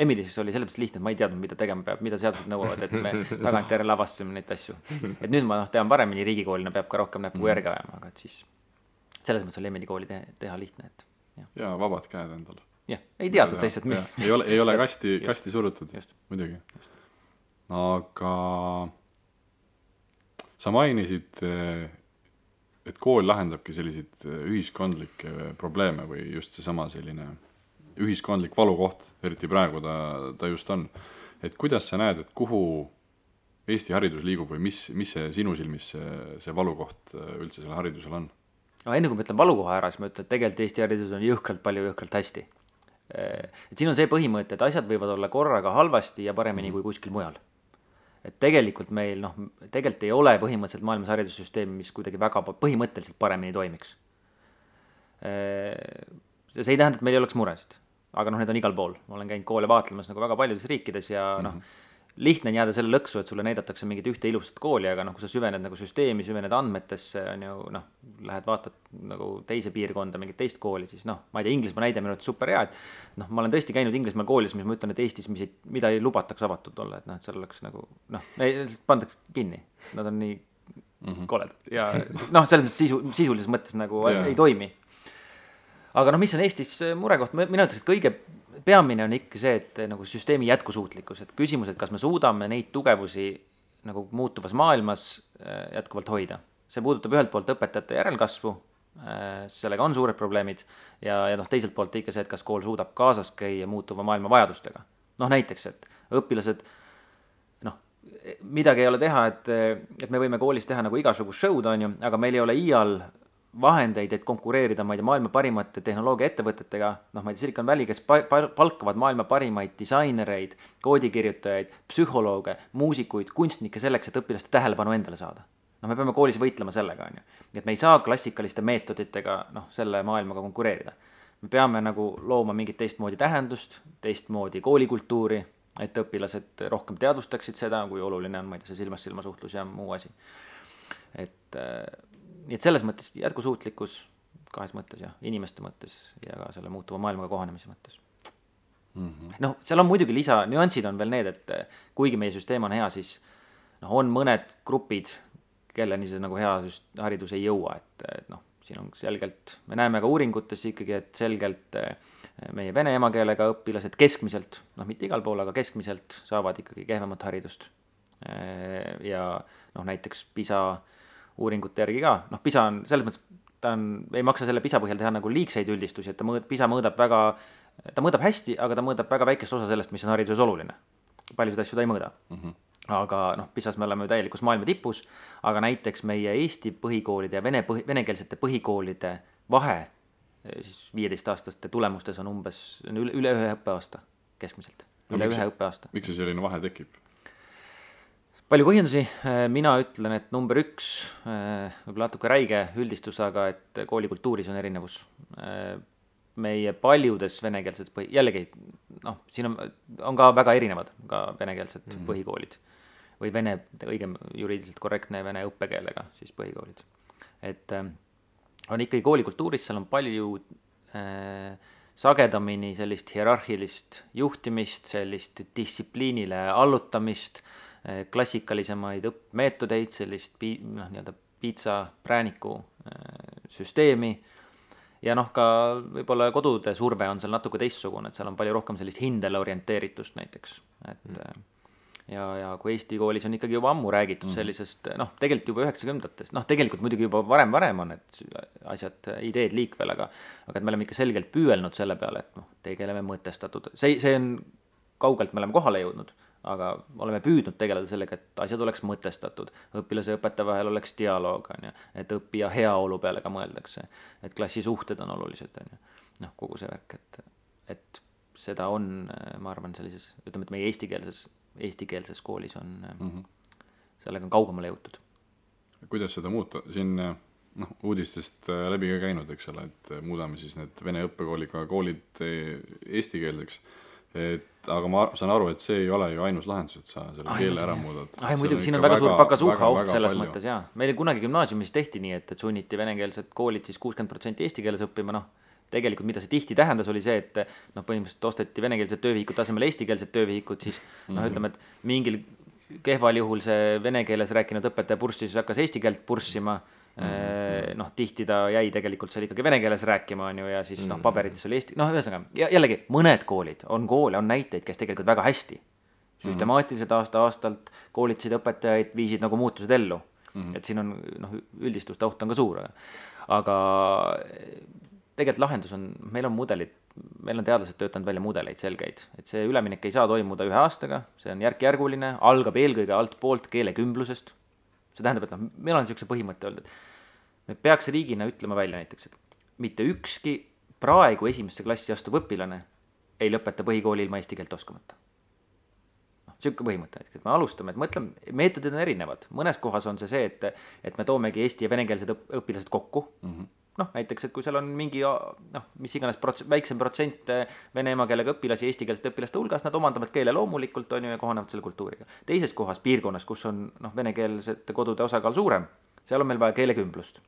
Emilis oli sellepärast lihtne, et ma ei teadnud, mida tegema peab, mida seadused nõuavad, et me tagantjärele avastasime neid asju. Et nüüd ma tean paremini riigikoolina, peab ka rohkem näppu järgi ajama, aga et siis selles mõttes oli Emily kooli teha lihtne. Ja vabad käed endale. Jah, ei teadnud lihtsalt, mis. Ei ole kasti surutud, muidugi. Aga sa mainisid, et kool lahendabki selliseid ühiskondlikke probleeme või just seesama selline ühiskondlik valukoht, eriti praegu ta just on. Et kuidas sa näed, et kuhu Eesti haridus liigub või mis see sinu silmis see valukoht üldse selle haridusel on? Enne kui ma ütlen valukoha ära, siis ma ütlen, et tegelikult Eesti haridus on jõhkralt hästi. Et siin on see põhimõte, et asjad võivad olla korraga halvasti ja paremini kui kuskil mujal. Et tegelikult meil, tegelikult ei ole põhimõtteliselt maailmas haridussüsteemi, mis kuidagi väga põhimõtteliselt paremini toimiks. See ei tähenda, et meil ei oleks muresid, aga need on igal pool. Ma olen käinud koole vaatlemas nagu väga paljudes riikides ja lihtne on jääda selle lõksu, et sulle näidatakse mingit ühte ilusat kooli, aga kui sa süvened nagu süsteemi, süvened andmetesse, on ju, lähed vaatad nagu teise piirkonda, mingit teist kooli, siis ma ei tea, Inglismaa näide minu super hea, et ma olen tõesti käinud Inglismaal koolis, mis ma ütlen, et Eestis, mida ei lubataks avatud olla, et seal oleks nagu, pandaks kinni, nad on nii koledad ja noh, selles mõttes sisulises mõttes nagu ei toimi. Aga noh, mis on Eestis murekoht, mina ütleks, et kõige peamine on ikka see, et nagu süsteemi jätkusuutlikkus, et küsimus, et kas me suudame neid tugevusi nagu muutuvas maailmas jätkuvalt hoida. See puudutab ühelt poolt õpetajate järelkasvu, sellega on suured probleemid ja noh, teiselt poolt ikka see, et kas kool suudab kaasas käia muutuva maailma vajadustega. Noh, näiteks, et õpilased, noh, midagi ei ole teha, et me võime koolis teha nagu igasugust show'd, on ju, aga meil ei ole iial vahendeid, et konkureerida, ma ei tea, maailma parimate tehnoloogiaettevõtetega, noh, ma ei tea, Silicon Valley, kes palkavad maailma parimaid disainereid, koodikirjutajaid, psühholooge, muusikuid, kunstnikke selleks, et õpilaste tähelepanu endale saada. Noh, me peame koolis võitlema sellega, on ju. Et me ei saa klassikaliste meetoditega, noh, selle maailmaga konkureerida. Me peame nagu looma mingit teistmoodi tähendust, teistmoodi koolikultuuri, et õpilased rohkem teadvustaksid seda, kui oluline on, ma ei tea, see silmas-silma suhtlus ja muu asi. Nii et selles mõttes jätkusuutlikkus kahes mõttes ja inimeste mõttes ja ka selle muutuva maailmaga kohanemise mõttes. Noh, seal on muidugi nüansid on veel need, et kuigi meie süsteem on hea, siis noh, on mõned grupid, kelleni see nagu hea haridus ei jõua, et noh, siin on selgelt, me näeme ka uuringutes ikkagi, et selgelt meie vene emakeelega õpilased keskmiselt, noh, mitte igal pool, aga keskmiselt saavad ikkagi kehvemat haridust. Ja noh, näiteks PISA uuringute järgi ka, noh, PISA on selles mõttes, ei maksa selle PISA põhjal teha nagu liigseid üldistusi, et PISA mõõdab hästi, aga ta mõõdab väga väikest osa sellest, mis on hariduses oluline. Paljusid asju ta ei mõõda. Aga noh, PISAs me oleme ju täielikus maailma tipus, aga näiteks meie Eesti põhikoolide ja venekeelsete põhikoolide vahe siis 15-aastaste tulemustes on umbes üle ühe õppeaasta keskmiselt. Üle ühe õppeaasta. Miks see selline vahe tekib? Palju põhjendusi, mina ütlen, et number 1, võib-olla natuke räige üldistus, aga et koolikultuuris on erinevus. Meie paljudes venekeelsed jällegi, noh, siin on ka väga erinevad ka venekeelsed põhikoolid või õigem juriidiliselt korrektne vene õppekeelega siis põhikoolid. Et on ikkagi koolikultuuris, seal on palju sagedamini sellist hierarhilist juhtimist, sellist distsipliinile allutamist, klassikalisemaid õppmeetodeid, sellist nii-öelda piitsa prääniku süsteemi ja noh, ka võib-olla kodude surve on seal natuke teistsugune, et seal on palju rohkem sellist hindele orienteeritust näiteks, et ja kui Eesti koolis on ikkagi juba ammu räägitud sellisest, noh, tegelikult juba 90-ndatest, noh, tegelikult muidugi juba varem on need asjad, ideed liikvel, aga et me oleme ikka selgelt püüelnud selle peale, et noh, tegeleme mõtestatud, see on kaugelt me oleme kohale jõudnud, aga oleme püüdnud tegeleda sellega, et asjad oleks mõtestatud, õpilase ja õpetaja vahel oleks dialoog, on ju, et õppija heaolu peale ka mõeldakse, et klassisuhted on olulised, on ju, noh, kogu see värk, et seda on, ma arvan, sellises, ütleme, et meie eestikeelses koolis on, sellega on kaugemale jõutud. Kuidas seda muuta? Siin noh, uudistest läbi ka käinud, eks ole, et muudame siis need vene õppekooliga koolid eestikeelseks. Aga ma saan aru, et see ei ole ju ainus lahendus, et sa selle keele ära muudad. Muidugi, siin on väga suur pakasuha oht selles mõttes, jaa. Meil kunagi gümnaasiumis tehti nii, et sunniti venekeelsed koolid siis 60% eesti keeles õppima, noh, tegelikult mida see tihti tähendas, oli see, et noh, põhimõtteliselt osteti venekeelsed töövihikud tasemel eestikeelsed töövihikud, siis noh, ütleme, et mingil kehval juhul see vene keeles rääkinud õpetaja purssis hakkas eesti keelt purssima, noh, tihti ta jäi tegelikult seal ikkagi vene keeles rääkima, on ju, ja siis noh, paberites oli eesti, noh, ühesõnaga, jällegi, mõned koolid, on koole, on näiteid, kes tegelikult väga hästi, süstemaatiliselt aasta-aastalt koolitasid õpetajaid, viisid nagu muutused ellu, et siin on, noh, üldistuste oht on ka suur, aga tegelikult lahendus on, meil on mudelid, meil on teadlased töötanud välja mudeleid selgeid, et see üleminek ei saa toimuda ühe aastaga, see on järk-järguline, algab eelkõige alt poolt keelekümblusest. See tähendab, et noh, meil on niisuguse põhimõtte olnud, et me peaks riigina ütlema välja näiteks, et mitte ükski praegu esimesse klassi astuv õpilane ei lõpeta põhikooli ilma eesti keelt oskamata. Niisugune põhimõte, et me alustame, et mõtleme, meetodid on erinevad. Mõnes kohas on see, et me toomegi eesti ja venekeelsed õpilased kokku. Noh, näiteks, et kui seal on mingi, noh, mis iganes väiksem protsent vene emakeelega õpilasi eestikeelsete õpilaste hulgas, nad omandavad keele loomulikult, on ju, ja kohanevad selle kultuuriga. Teises kohas piirkonnas, kus on noh, venekeelsete kodude osakaal suurem, seal on meil vaja keelekümblust.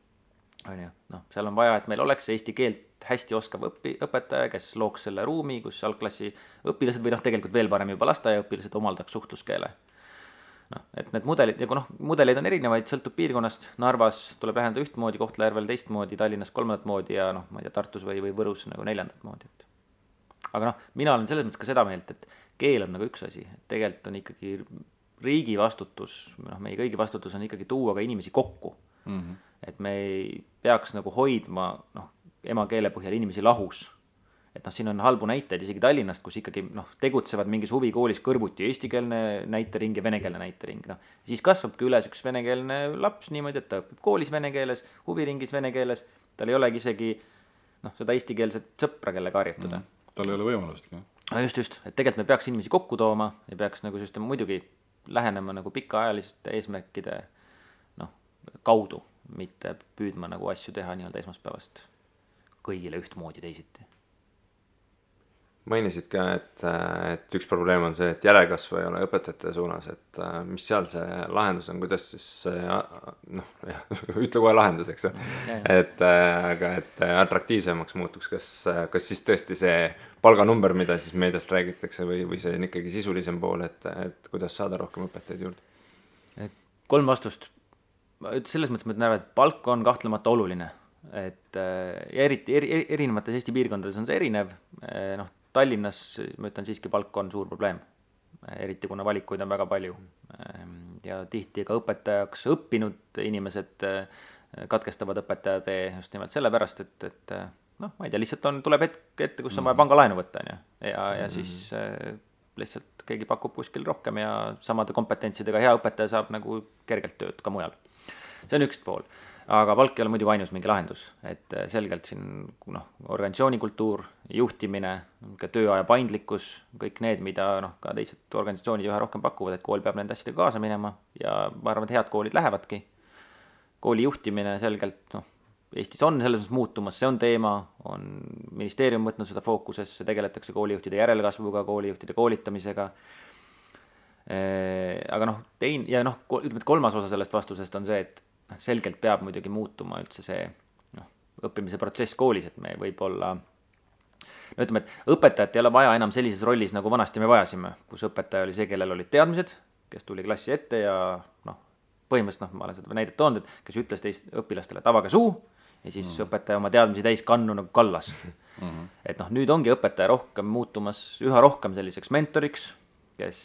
On ju, noh, seal on vaja, et meil oleks eesti keelt hästi oskav õpetaja, kes looks selle ruumi, kus algklassi õpilased või noh, tegelikult veel parem juba lasteaiaõpilased omaldaks suhtluskeele. noh, et need mudelid, nagu noh, mudeleid on erinevaid, sõltub piirkonnast, Narvas tuleb läheneda ühtmoodi, Kohtla-Järvel teistmoodi, Tallinnas kolmandat moodi ja noh, ma ei tea, Tartus või Võrus nagu neljandat moodi, et aga noh, mina olen selles mõttes ka seda meelt, et keel on nagu üks asi, et tegelikult on ikkagi riigi vastutus, noh, meie kõigi vastutus on ikkagi tuua ka inimesi kokku. Et me ei peaks nagu hoidma noh, emakeele põhjal inimesi lahus. Et noh, siin on halbu näiteid isegi Tallinnast, kus ikkagi noh, tegutsevad mingis huvikoolis kõrvuti eestikeelne näitering ja venekeelne näitering. Noh, siis kasvabki üles üks venekeelne laps niimoodi, et ta õpib koolis vene keeles, huviringis vene keeles, tal ei olegi isegi noh, seda eestikeelset sõpra, kellega harjutada. Tal ei ole võimalustki. Just, et tegelikult me peaks inimesi kokku tooma ja peaks nagu süsteem muidugi lähenema nagu pikaajaliste eesmärkide noh, kaudu, mitte püüdma nagu asju teha nii-öelda esmaspäevast kõigile ühtmoodi teisiti. Mainisid ka, et üks probleem on see, et järelkasvu ei ole õpetajate suunas, et mis seal see lahendus on, kuidas siis noh, ütle kohe lahendus, eks aga et atraktiivsemaks muutuks, kas siis tõesti see palganumber, mida siis meediast räägitakse või see on ikkagi sisulisem pool, et kuidas saada rohkem õpetajaid juurde? 3 vastust. Selles mõttes ma ütlen ära, et palk on kahtlemata oluline, et ja eriti erinevates Eesti piirkondades on see erinev, noh, Tallinnas ma ütlen siiski palk on suur probleem, eriti kuna valikuid on väga palju ja tihti ka õpetajaks õppinud inimesed katkestavad õpetaja tee just nimelt sellepärast, et noh, ma ei tea, lihtsalt tuleb hetk ette, kus on vaja pangalaenu võtta ja siis lihtsalt keegi pakub kuskil rohkem ja samade kompetentsidega hea õpetaja saab nagu kergelt tööd ka mujal. See on üks pool. Aga palk ei ole muidugi ainus mingi lahendus, et selgelt siin noh, organisatsioonikultuur, juhtimine, ka tööaja paindlikkus, kõik need, mida noh, ka teised organisatsioonid üha rohkem pakuvad, et kool peab nende asjadega kaasa minema ja ma arvan, et head koolid lähevadki. Kooli juhtimine selgelt, noh, Eestis on selles mõttes muutumas, see on teema, on ministeerium võtnud seda fookusesse, tegeletakse koolijuhtide järelkasvuga, koolijuhtide koolitamisega. Aga noh, ütleme, et 3. osa sellest vastusest on see, et selgelt peab muidugi muutuma üldse see noh, õppimise protsess koolis, et me võib-olla no ütleme, et õpetajat ei ole vaja enam sellises rollis, nagu vanasti me vajasime, kus õpetaja oli see, kellel olid teadmised, kes tuli klassi ette ja noh, põhimõtteliselt ma olen seda näidet toonud, et kes ütles teist õpilastele, et avage suu ja siis õpetaja oma teadmisi täis kannu nagu kallas. Et noh, nüüd ongi õpetaja rohkem muutumas üha rohkem selliseks mentoriks, kes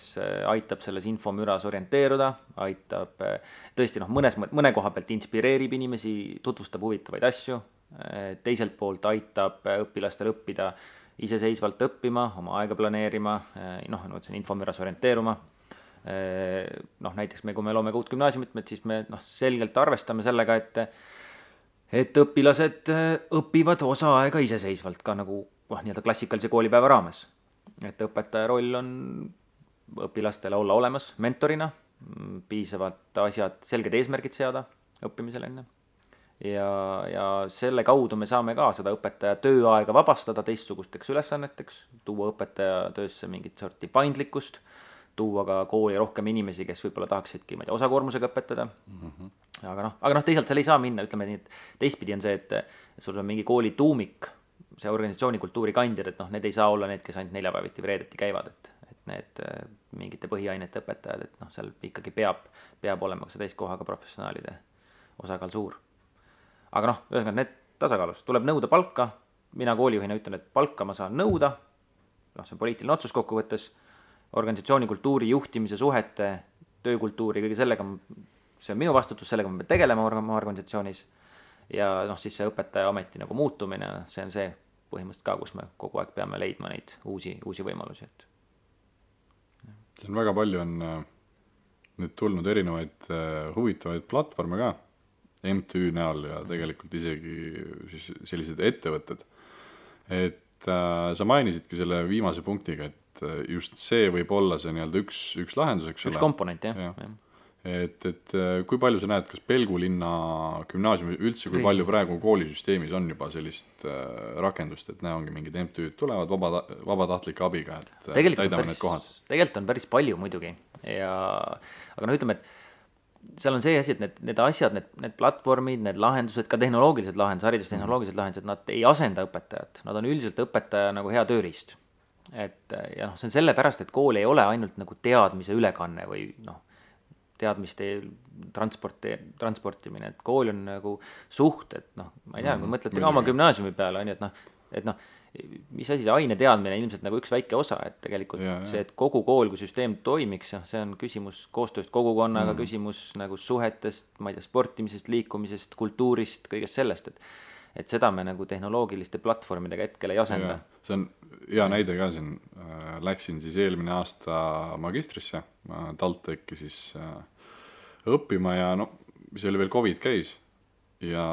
aitab selles infomüras orienteeruda, aitab tõesti noh, mõne koha pealt inspireerib inimesi, tutvustab huvitavaid asju, teiselt poolt aitab õpilastel õppida iseseisvalt õppima, oma aega planeerima, noh, infomüras orienteeruma. Noh, näiteks kui me loome ka uut gümnaasiumit, siis me noh, selgelt arvestame sellega, et õpilased õpivad osa aega iseseisvalt ka nagu nii-öelda klassikalise koolipäeva raames. Et õpetaja roll on õpilastele olla olemas mentorina, piisavalt asjad, selged eesmärgid seada õppimisel enne. Ja selle kaudu me saame ka seda õpetaja tööaega vabastada teistsugusteks ülesanneteks, tuua õpetaja töösse mingit sorti paindlikkust, tuua ka kooli rohkem inimesi, kes võib-olla tahaksidki osakoormusega õpetada. Aga noh, teisalt seal ei saa minna, ütleme nii, et teistpidi on see, et sul on mingi kooli tuumik, see organisatsioonikultuuri kandjad, et noh, need ei saa olla need, kes ainult neljapäeviti vreedeti käivad, et need mingite põhiainete õpetajad, et noh, seal ikkagi peab olema ka see täiskohaga professionaalide osakaal suur. Aga noh, ühesõnaga need tasakaalus, tuleb nõuda palka, mina koolijuhina ütlen, et palka ma saan nõuda, noh, see on poliitiline otsus kokkuvõttes, organisatsioonikultuuri, juhtimise, suhete, töökultuuri, kõige sellega, see on minu vastutus, sellega ma pean tegelema oma organisatsioonis ja noh, siis see õpetaja ameti nagu muutumine, see on see põhimõtteliselt ka, kus me kogu aeg peame leidma neid uusi võimalusi, et see on väga palju on nüüd tulnud erinevaid huvitavaid platvorme ka MTÜ näol ja tegelikult isegi siis sellised ettevõtted. Et sa mainisidki selle viimase punktiga, et just see võib olla see nii-öelda üks lahendus, eks ole. Üks komponent, jah. Et kui palju sa näed, kas Pelgulinna gümnaasiumi üldse, kui palju praegu koolisüsteemis on juba sellist rakendust, et ongi mingid MTÜ-d tulevad vabatahtlike abiga, et täidame need kohad? Tegelikult on päris palju muidugi, aga no ütleme, et seal on see asi, et need asjad, need platvormid, need lahendused, ka tehnoloogilised lahendused, haridustehnoloogilised lahendused, nad ei asenda õpetajat, nad on üldiselt õpetaja nagu hea tööriist. Ja noh, see on sellepärast, et kool ei ole ainult nagu teadmise ülekanne või noh, teadmiste transportimine, et kool on nagu suhted, noh, ma ei tea, kui mõtlete ka oma gümnaasiumi peale, on ju, et noh, mis asi, see aineteadmine ilmselt nagu üks väike osa, et tegelikult see, et kogu kool kui süsteem toimiks, see on küsimus koostööst kogukonnaga, küsimus nagu suhetest, ma ei tea, sportimisest, liikumisest, kultuurist, kõigest sellest, et seda me nagu tehnoloogiliste platvormidega hetkel ei asenda. See on hea näide ka siin, läksin siis eelmine aasta magistrisse, TalTechi siis õppima ja no, mis oli veel COVID käis ja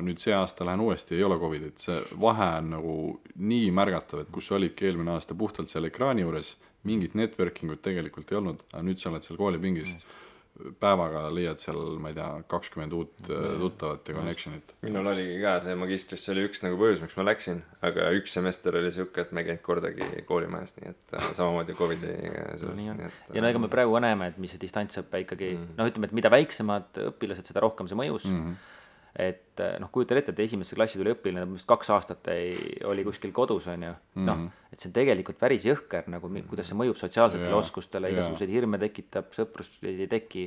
nüüd see aasta lähen uuesti, ei ole COVIDit, see vahe on nagu nii märgatav, et kus olidki eelmine aasta puhtalt seal ekraani juures, mingit networkingut tegelikult ei olnud, aga nüüd sa oled seal koolipingis, päevaga leiad seal, ma ei tea, 20 uut tuttavat ja connectionit. Minul oligi ka see magistris, see oli üks nagu põhjus, miks ma läksin, aga üks semester oli siuke, et me ei käinud kordagi koolimajas, nii et samamoodi COVID-i ja no ega me praegu ka näeme, et mis see distantsõppe ikkagi, noh ütleme, et mida väiksemad õpilased, seda rohkem see mõjus, et noh, kujutan ette, et esimesse klassi tuli õpilane, mis 2 aastat oli kuskil kodus, on ju, noh, et see on tegelikult päris jõhker, nagu kuidas see mõjub sotsiaalsetele oskustele, igasuguseid hirme tekitab, sõprust ei teki,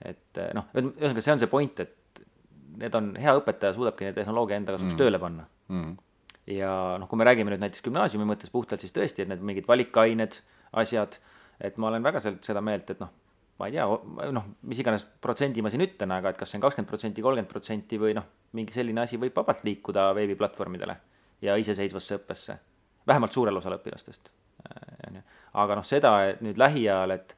et noh, ühesõnaga see on see point, et need on, hea õpetaja suudabki neid tehnoloogia enda kasuks tööle panna. Ja noh, kui me räägime nüüd näiteks gümnaasiumi mõttes puhtalt, siis tõesti, et need mingid valikained, asjad, et ma olen väga seda meelt, et noh, ma ei tea, noh, mis iganes protsendi ma siin ütlen, aga et kas see on 20%, 30% või noh, mingi selline asi võib vabalt liikuda veebiplatvormidele ja iseseisvasse õppesse, vähemalt suurel osal õpilastest. Aga noh, seda et nüüd lähiajal, et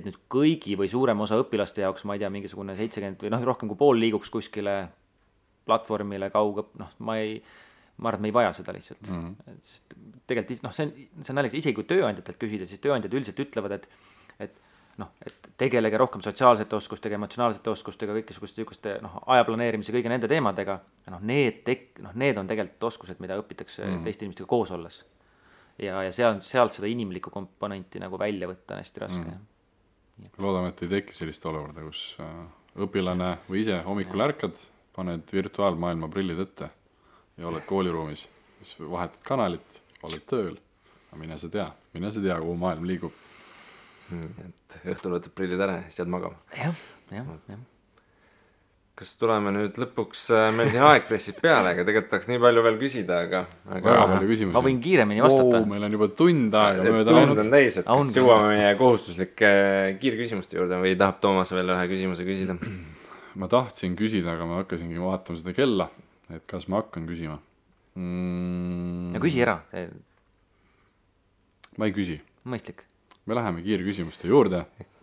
nüüd kõigi või suurem osa õpilaste jaoks, ma ei tea, mingisugune 70 või noh, rohkem kui pool liiguks kuskile platvormile kaugõpp, noh, ma arvan, et me ei vaja seda lihtsalt. Sest tegelikult, noh, see on naljakas, isegi kui tööandjatelt küsida, siis tööandjad üldiselt ütlevad, et tegelege rohkem sotsiaalsete oskustega, emotsionaalsete oskustega, kõikisuguste noh, aja planeerimise, kõige nende teemadega, noh, need on tegelikult oskused, mida õpitakse teiste inimestega koos olles. Ja sealt seda inimlikku komponenti nagu välja võtta on hästi raske. Loodame, et ei teki sellist olukorda, kus õpilane või ise hommikul ärkad, paned virtuaalmaailma prillid ette ja oled kooliruumis, siis vahetad kanalit, oled tööl, aga mine sa tea, kuhu maailm liigub. Et õhtul võtad prillid ära ja siis jääd magama. Jah. Kas tuleme nüüd lõpuks, meil siin aeg pressib peale, aga tegelikult tahaks nii palju veel küsida, aga väga palju küsimusi. Ma võin kiiremini vastata. Meil on juba tund aega mööda läinud. Tund on täis, et kas jõuame meie kohustuslike kiirküsimuste juurde või tahab Toomas veel ühe küsimuse küsida? Ma tahtsin küsida, aga ma hakkasingi vaatama seda kella, et kas ma hakkan küsima. Ja küsi ära. Ma ei küsi. Mõistlik. Me läheme kiirküsimuste juurde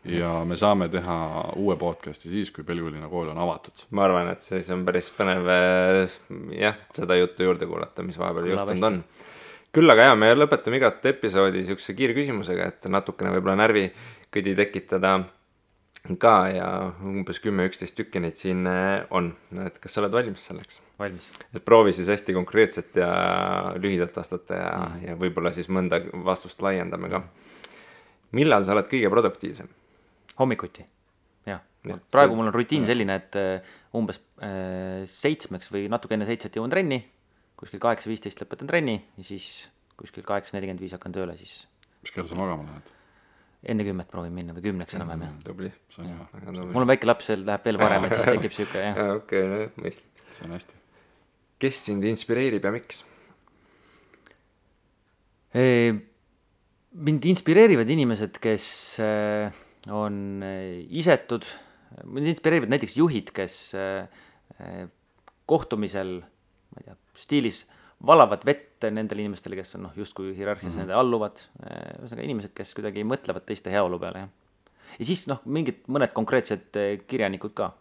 ja me saame teha uue podcasti siis, kui Pelgulinna kool on avatud. Ma arvan, et siis on päris põnev seda juttu juurde kuulata, mis vahepeal juhtunud on. Küll aga me lõpetame igat episoodi siukse kiirküsimusega, et natukene võib-olla närvikõdi tekitada ka ja umbes 10-11 tükki neid siin on. Et kas sa oled valmis selleks? Valmis. Et proovi siis hästi konkreetselt ja lühidalt vastata ja võib-olla siis mõnda vastust laiendame ka. Millal sa oled kõige produktiivsem? Hommikuti, jah. Praegu mul on rutiin selline, et umbes 7 või natuke enne 7 jõuan trenni, kuskil 8:15 lõpetan trenni ja siis kuskil 8:45 hakkan tööle siis. Mis kell sa magama lähed? Enne 10 proovin minna või 10 enam-vähem, jah. Tubli. Mul on väike laps, läheb veel varem, et siis tekib siuke, jah. Okei, mõistlik. See on hästi. Kes sind inspireerib ja miks? Mind inspireerivad inimesed, kes on isetud, mind inspireerivad näiteks juhid, kes kohtumisel, ma ei tea, stiilis valavad vett nendele inimestele, kes on justkui hierarhias nende alluvad, ühesõnaga inimesed, kes kuidagi mõtlevad teiste heaolu peale. Ja siis mõned konkreetsed kirjanikud ka,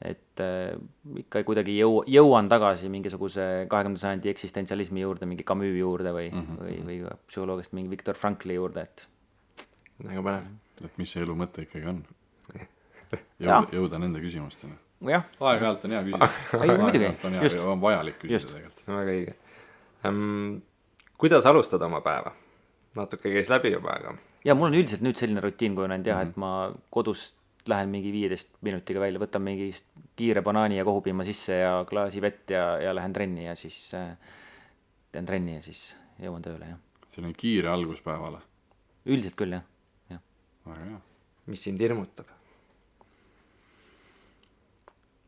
et ikka kuidagi jõuan tagasi mingisuguse 20. sajandi eksistentsialismi juurde, mingi Camus juurde või psühholoogist mingi Viktor Frankli juurde, et väga põnev. Et mis see elu mõte ikkagi on? Jõuda nende küsimustena. Aeg-ajalt on hea küsida. Aeg-ajalt on vajalik küsida tegelikult. Väga õige. Kuidas alustada oma päeva? Natuke käis läbi juba, aga... Ja mul on üldiselt nüüd selline rutiin kujunenud jah, et ma kodust lähen mingi 15 minutiga välja, võtan mingi kiire banaani ja kohupiima sisse ja klaasi vett ja lähen trenni ja siis teen trenni ja siis jõuan tööle, jah. See on kiire alguspäevale? Üldiselt küll, jah. Väga hea. mis sind hirmutab?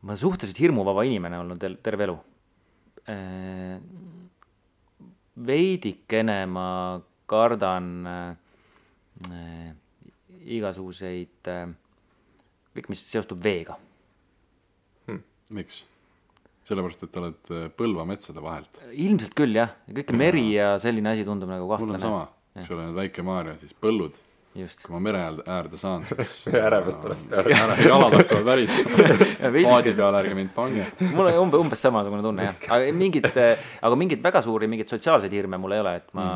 Ma olen suhteliselt hirmuvaba inimene olnud terve elu. Veidikene ma kardan igasuguseid, kõik mis seostub veega. Miks? Sellepärast, et oled Põlva metsade vahelt. Ilmselt küll jah, kõik meri ja selline asi tundub nagu Mul on kahtlane. sama, kui sa oled väike Maarja, siis põllud. Just. Kui ma mere äärde saan, siis Ärevest oled peale. jalad hakkavad värisema. Paadi peale ärge mind pange. Mul on umbes samasugune tunne jah, aga mingid väga suuri, mingid sotsiaalseid hirme mul ei ole, et ma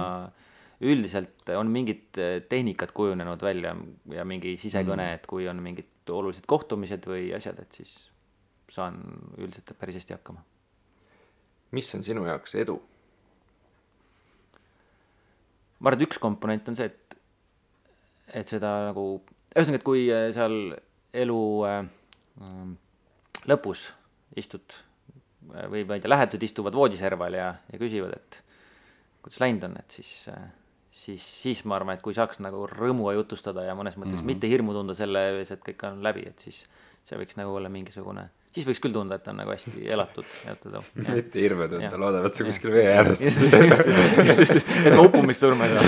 üldiselt on mingid tehnikad kujunenud välja ja mingi sisekõne, et kui on mingid olulised kohtumised või asjad, et siis saan üldiselt päris hästi hakkama. Mis on sinu jaoks edu? Ma arvan, et üks komponent on see, et seda nagu, ühesõnaga, et kui seal elu lõpus istud või ma ei tea, lähedased istuvad voodiserval ja küsivad, et kuidas läinud on, et siis ma arvan, et kui saaks nagu rõõmuga jutustada ja mõnes mõttes mitte hirmu tunda selle ees, et kõik on läbi, et siis see võiks nagu olla mingisugune, siis võiks küll tunda, et on nagu hästi elatud. Mitte hirme tunda, loodavad sa kuskil vee ääres. Just, et ma uppumist surma ei saa.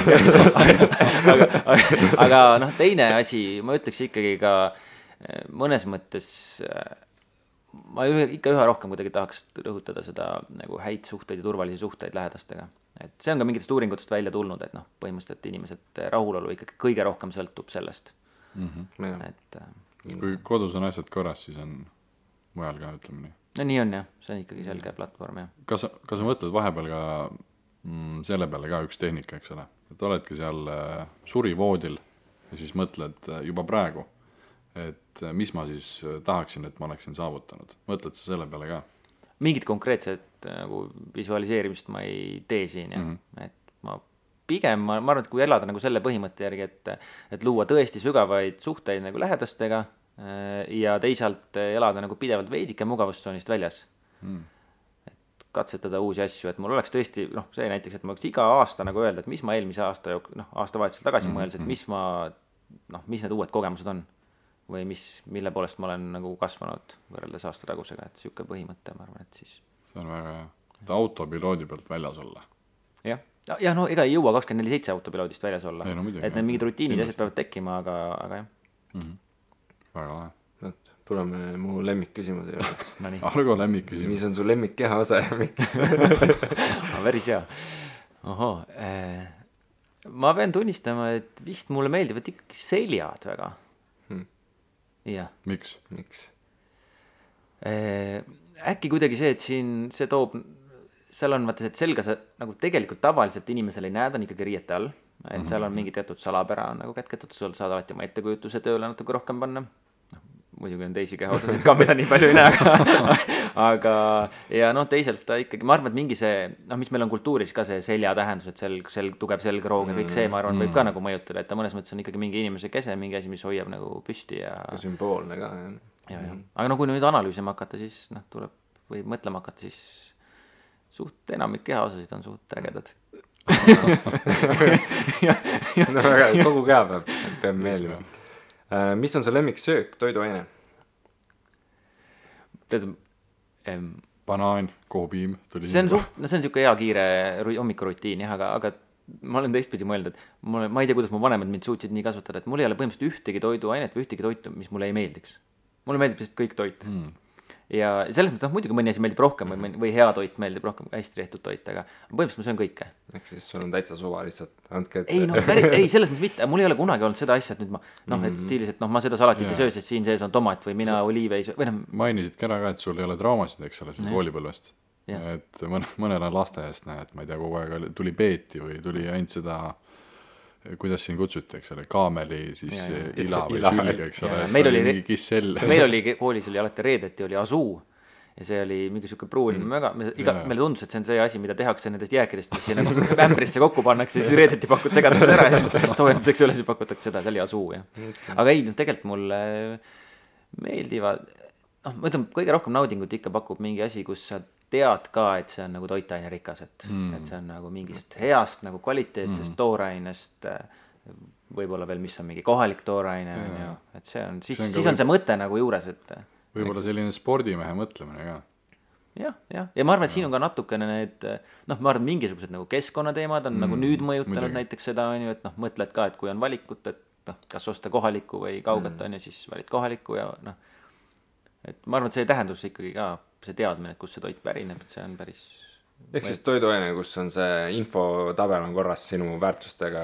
Aga noh, teine asi, ma ütleks ikkagi ka mõnes mõttes, ma ikka üha rohkem kuidagi tahaks rõhutada seda nagu häid suhteid ja turvalisi suhteid lähedastega. Et see on ka mingitest uuringutest välja tulnud, et noh, põhimõtteliselt inimesed rahulolu ikkagi kõige rohkem sõltub sellest. Et kui kodus on asjad korras, siis on mujal ka, ütleme nii. No nii on jah, see on ikkagi selge platvorm jah. Kas sa mõtled vahepeal ka selle peale ka üks tehnika, eks ole? Et oledki seal surivoodil ja siis mõtled juba praegu, et mis ma siis tahaksin, et ma oleksin saavutanud. Mõtled sa selle peale ka? Mingit konkreetset nagu visualiseerimist ma ei tee siin jah. Et ma pigem, ma arvan, et kui elada nagu selle põhimõtte järgi, et luua tõesti sügavaid suhteid nagu lähedastega ja teisalt elada nagu pidevalt veidike mugavustsoonist väljas. Et katsetada uusi asju, et mul oleks tõesti, noh, see näiteks, et ma võiks iga aasta nagu öelda, et mis ma eelmise aasta, aastavahetusel tagasi mõeldes, et mis need uued kogemused on või mille poolest ma olen nagu kasvanud võrreldes aasta tagusega, et siuke põhimõte, ma arvan, et siis. See on väga hea, et autopiloodi pealt väljas olla. Jah, no ega ei jõua 24/7 autopiloodist väljas olla, ei, no, muidugi, et need mingid rutiinid asjad peavad tekkima, aga jah. Väga lahe. Tuleme mu lemmikküsimuse juurde. Argo lemmikküsimus. Mis on su lemmikkeha osa ja miks? Päris hea. Ma pean tunnistama, et vist mulle meeldivad ikkagi seljad väga. Jah. Miks? Äkki kuidagi see, et siin see toob, seal on vaata, et selga sa nagu tegelikult tavaliselt inimesel ei näe, ta on ikkagi riiete all, et seal on mingi teatud salapära nagu kätketud, sul saad alati oma ettekujutuse tööle natuke rohkem panna. Muidugi on teisi kehaosasid ka, mida nii palju ei näe, aga ja noh, teisalt ta ikkagi, ma arvan, et mingi see, mis meil on kultuuris ka see selja tähendus, et tugev selgroog ja kõik see, ma arvan, võib ka nagu mõjutada, et ta mõnes mõttes on ikkagi mingi inimese kese, mingi asi, mis hoiab nagu püsti ja sümboolne ka, jah. Aga no kui nüüd analüüsima hakata, siis tuleb või mõtlema hakata, siis suht enamik kehaosasid on suht ägedad. No väga, kogu keha peab meeldima. Mis on su lemmiksöök, toiduaine? Banaan, koopiim. See on siuke hea kiire hommikurutiin jah, aga ma olen teistpidi mõelnud, et ma ei tea, kuidas mu vanemad mind suutsid nii kasvatada, et mul ei ole põhimõtteliselt ühtegi toiduainet või ühtegi toitu, mis mulle ei meeldiks. Mulle meeldib lihtsalt kõik toit. Ja selles mõttes, muidugi mõni asi meeldib rohkem või hea toit meeldib rohkem, hästi tehtud toit, aga põhimõtteliselt ma söön kõike. Ehk siis sul on täitsa suva lihtsalt, andke ette. Ei, selles mõttes mitte, mul ei ole kunagi olnud seda asja, et nüüd et stiilis, et ma seda salatit ei söö, sest siin sees on tomat või mina oliive ei söö. Mainisidki ära ka, et sul ei ole traumasid, eks ole, koolipõlvest. Et mõnel on lasteaiast näe, et ma ei tea, kogu aeg tuli peeti või tuli ainult seda, kuidas siin kutsuti, eks ole, kaameli, siis ila või sülge, eks ole. Meil oli koolis oli alati reedeti, oli asuu ja see oli mingi siuke pruun, meile tundus, et see on see asi, mida tehakse nendest jääkidest, mis siin nagu ämbrisse kokku pannakse, siis reedeti segatakse ära ja siis soojendamiseks üle, siis pakutakse seda, see oli asuu, jah. Aga ei, tegelikult mulle meeldivad, ma ütlen, kõige rohkem naudingut ikka pakub mingi asi, kus sa tead ka, et see on nagu toitaine rikas, et see on nagu mingist heast nagu kvaliteetsest toorainest võib-olla veel, mis on mingi kohalik tooraine, on ju, et see on, siis on see mõte nagu juures, et võib-olla selline spordimehe mõtlemine ka. Ja ma arvan, et siin on ka natukene need, noh, ma arvan, mingisugused nagu keskkonnateemad on nagu nüüd mõjutanud näiteks seda, on ju, et noh, mõtled ka, et kui on valikut, et noh, kas osta kohalikku või kauget, on ju, siis valid kohalikku ja noh, et ma arvan, et see tähendus ikkagi ka, see teadmine, et kust see toit pärineb, et see on päris ehk siis toiduaine, kus on see infotabel on korras sinu väärtustega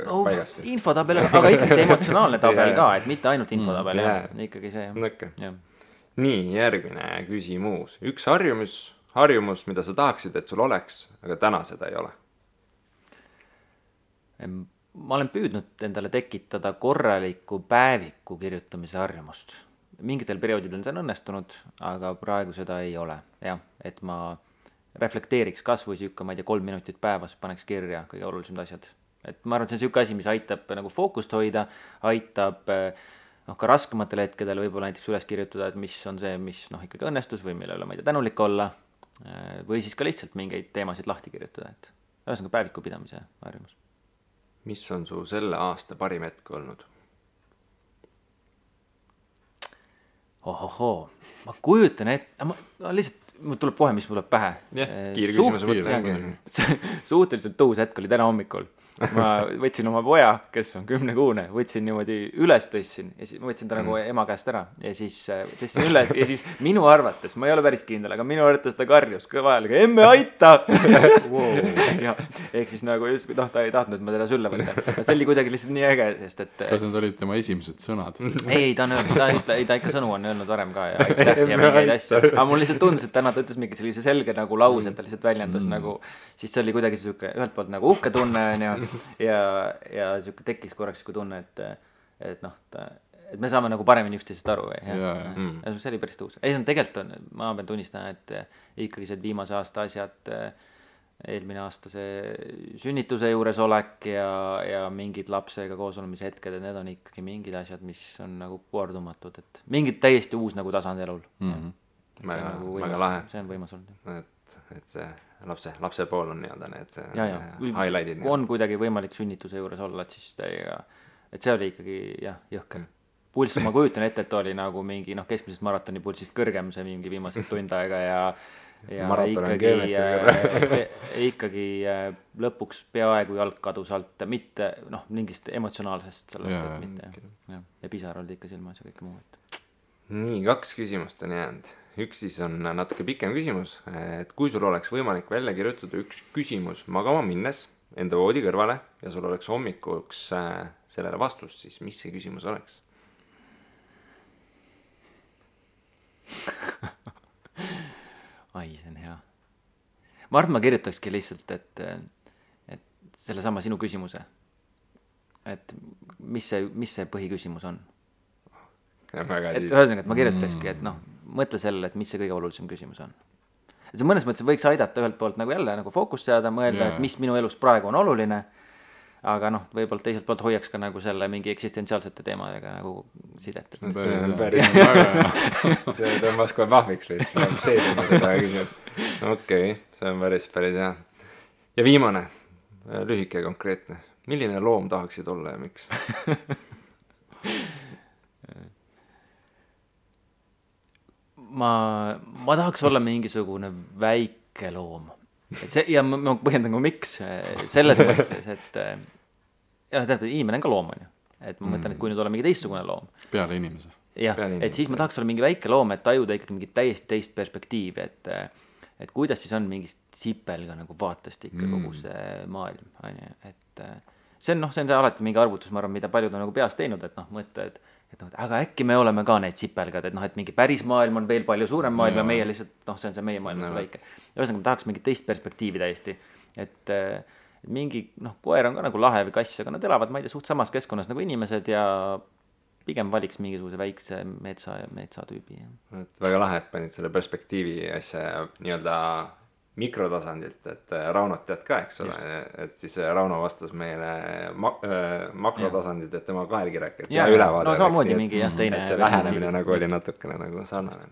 paigas siis. Infotabel, aga ikkagi see emotsionaalne tabel ka, et mitte ainult infotabel, ikkagi see. Okay. Nii, järgmine küsimus. Üks harjumus, mida sa tahaksid, et sul oleks, aga täna seda ei ole? Ma olen püüdnud endale tekitada korraliku päeviku kirjutamise harjumust. Mingitel perioodidel see on õnnestunud, aga praegu seda ei ole. Jah, et ma reflekteeriks kas või siuke, ma ei tea, 3 minutit päevas paneks kirja kõige olulisemad asjad. Et ma arvan, et see on siuke asi, mis aitab nagu fookust hoida, aitab ka raskematel hetkedel võib-olla näiteks üles kirjutada, et mis on see, mis ikkagi õnnestus või mille üle ma ei tea tänulik olla, või siis ka lihtsalt mingeid teemasid lahti kirjutada, et ühesõnaga päeviku pidamise harjumus. Mis on su selle aasta parim hetk olnud? Ohohoo, ma kujutan ette, ma lihtsalt mul tuleb kohe, mis mul tuleb pähe. Kiirküsimuse mõte. Suhteliselt tõus hetk oli täna hommikul. Ma võtsin oma poja, kes on 10-kuune, võtsin niimoodi üles tõstsin ja siis ma võtsin ta nagu ema käest ära ja siis tõstsin üles ja siis minu arvates, ma ei ole päris kindel, aga minu arvates ta karjus kõva häälega, emme aita! Ja, ehk siis nagu just, ta ei tahtnud, et ma teda sülle võtta. See oli kuidagi lihtsalt nii äge, sest et... Kas need olid tema esimesed sõnad? Ei, ta on öelnud, ta ikka sõnu on öelnud varem ka ja aitäh ja mingeid asju. Aga mul lihtsalt tundus, et täna ta ütles mingi sellise selge nagu lause, et ta lihtsalt väljendas nagu, siis see oli kuidagi siuke ühelt poolt nagu uhke tunne ja siuke tekkis korraks siuke tunne, et me saame nagu paremini üksteisest aru. See oli päris tõus. Ei, see on tegelikult, ma pean tunnistama, et ikkagi see viimase aasta asjad, eelmine aasta see sünnituse juures olek ja mingid lapsega koos olemise hetked, et need on ikkagi mingid asjad, mis on nagu kordumatud, et mingid täiesti uus nagu tasand elul. Väga lahe. See on võimas olnud. Et see lapse pool on nii-öelda need highlightid. Kui on kuidagi võimalik sünnituse juures olla, et siis et see oli ikkagi jõhker. Pulss, ma kujutan ette, et oli nagu mingi keskmisest maratoni pulsist kõrgem see mingi viimased tund aega ja ikkagi lõpuks peaaegu jalg kadus alt, mitte mingist emotsionaalsest sellest, et mitte. Ja pisar olid ikka silmas ja kõik muu. Nii, 2 küsimust on jäänud. Üks siis on natuke pikem küsimus, et kui sul oleks võimalik välja kirjutada üks küsimus magama minnes enda voodi kõrvale ja sul oleks hommikuks sellele vastust, siis mis see küsimus oleks? Ai, see on hea. Ma arvan, ma kirjutakski lihtsalt, et selle sama sinu küsimuse, et mis see põhiküsimus on. Et ühesõnaga, et ma kirjutakski, et mõtle sellele, et mis see kõige olulisem küsimus on. Et see mõnes mõttes võiks aidata ühelt poolt nagu jälle nagu fookust seada, mõelda, et mis minu elus praegu on oluline, aga võib-olla teiselt poolt hoiaks ka nagu selle mingi eksistentsiaalsete teemadega nagu sidet. See on päris väga, see tõmbas kohe pahviks lihtsalt, see tõmbas seda küsimust. Okei, see on päris hea. Ja viimane, lühike ja konkreetne. Milline loom tahaksid olla ja miks? Ma tahaks olla mingisugune väike loom. Ja ma põhjendan ka miks. Selles mõttes, et inimene on ka loom, on ju. Et ma mõtlen, et kui nüüd olla mingi teistsugune loom. Peale inimese. Jah, et siis ma tahaks olla mingi väike loom, et tajuda ikkagi mingit täiesti teist perspektiivi, et kuidas siis on mingist sipelga nagu vaatest ikka kogu see maailm, on ju. Et see on alati mingi arvutus, ma arvan, mida paljud on nagu peas teinud, et mõtle, et aga äkki me oleme ka need sipelgad, et mingi päris maailm on veel palju suurem maailm ja meie lihtsalt, see on see meie maailm, see väike. Ja ühesõnaga, ma tahaks mingit teist perspektiivi täiesti, et mingi, koer on ka nagu lahe või kass, aga nad elavad, ma ei tea, suht samas keskkonnas nagu inimesed ja pigem valiks mingisuguse väikse metsatüübi. Väga lahe, et panid selle perspektiivi asja nii-öelda mikrotasandilt, et Raunot tead ka, eks ole, et siis Rauno vastas meile makrotasandit, et tema kaelgi rääkis ja ülevaade. Samamoodi mingi teine. Et see lähenemine nagu oli natukene nagu sarnane.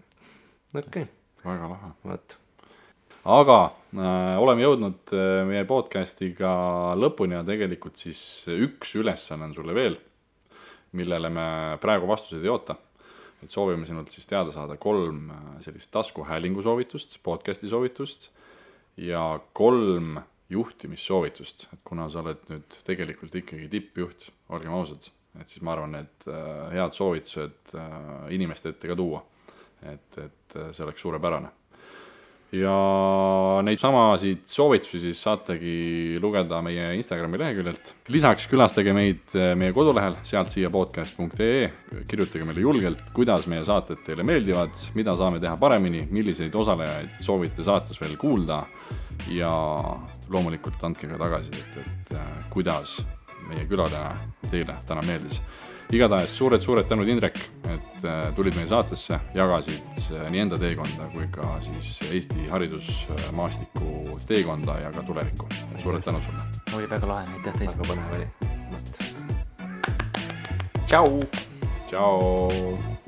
Okei. Väga lahe. Võt. aga oleme jõudnud meie podcastiga lõpuni ja tegelikult siis üks ülesanne on sulle veel, millele me praegu vastuseid ei oota. Et soovime sinult siis teada saada 3 sellist taskuhäälingu soovitust, podcasti soovitust ja 3 juhtimissoovitust. Et kuna sa oled nüüd tegelikult ikkagi tippjuht, olgem ausad, et siis ma arvan, et head soovitused inimeste ette ka tuua. Et see oleks suurepärane. Ja neid samasid soovitusi siis saategi lugeda meie Instagrami leheküljelt. Lisaks külastage meid meie kodulehel, sealt siia podcast.ee, kirjutage meile julgelt, kuidas meie saated teile meeldivad, mida saame teha paremini, milliseid osalejaid soovite saates veel kuulda ja loomulikult andke ka tagasisidet, et kuidas meie külaline teile täna meeldis. Igatahes suured tänud, Indrek, et tulid meie saatesse, jagasid nii enda teekonda kui ka siis Eesti haridusmaastiku teekonda ja ka tulevikku. Suured tänud sulle. Oli väga lahe, aitäh teile. Väga põnev oli. Tšau! Tšau!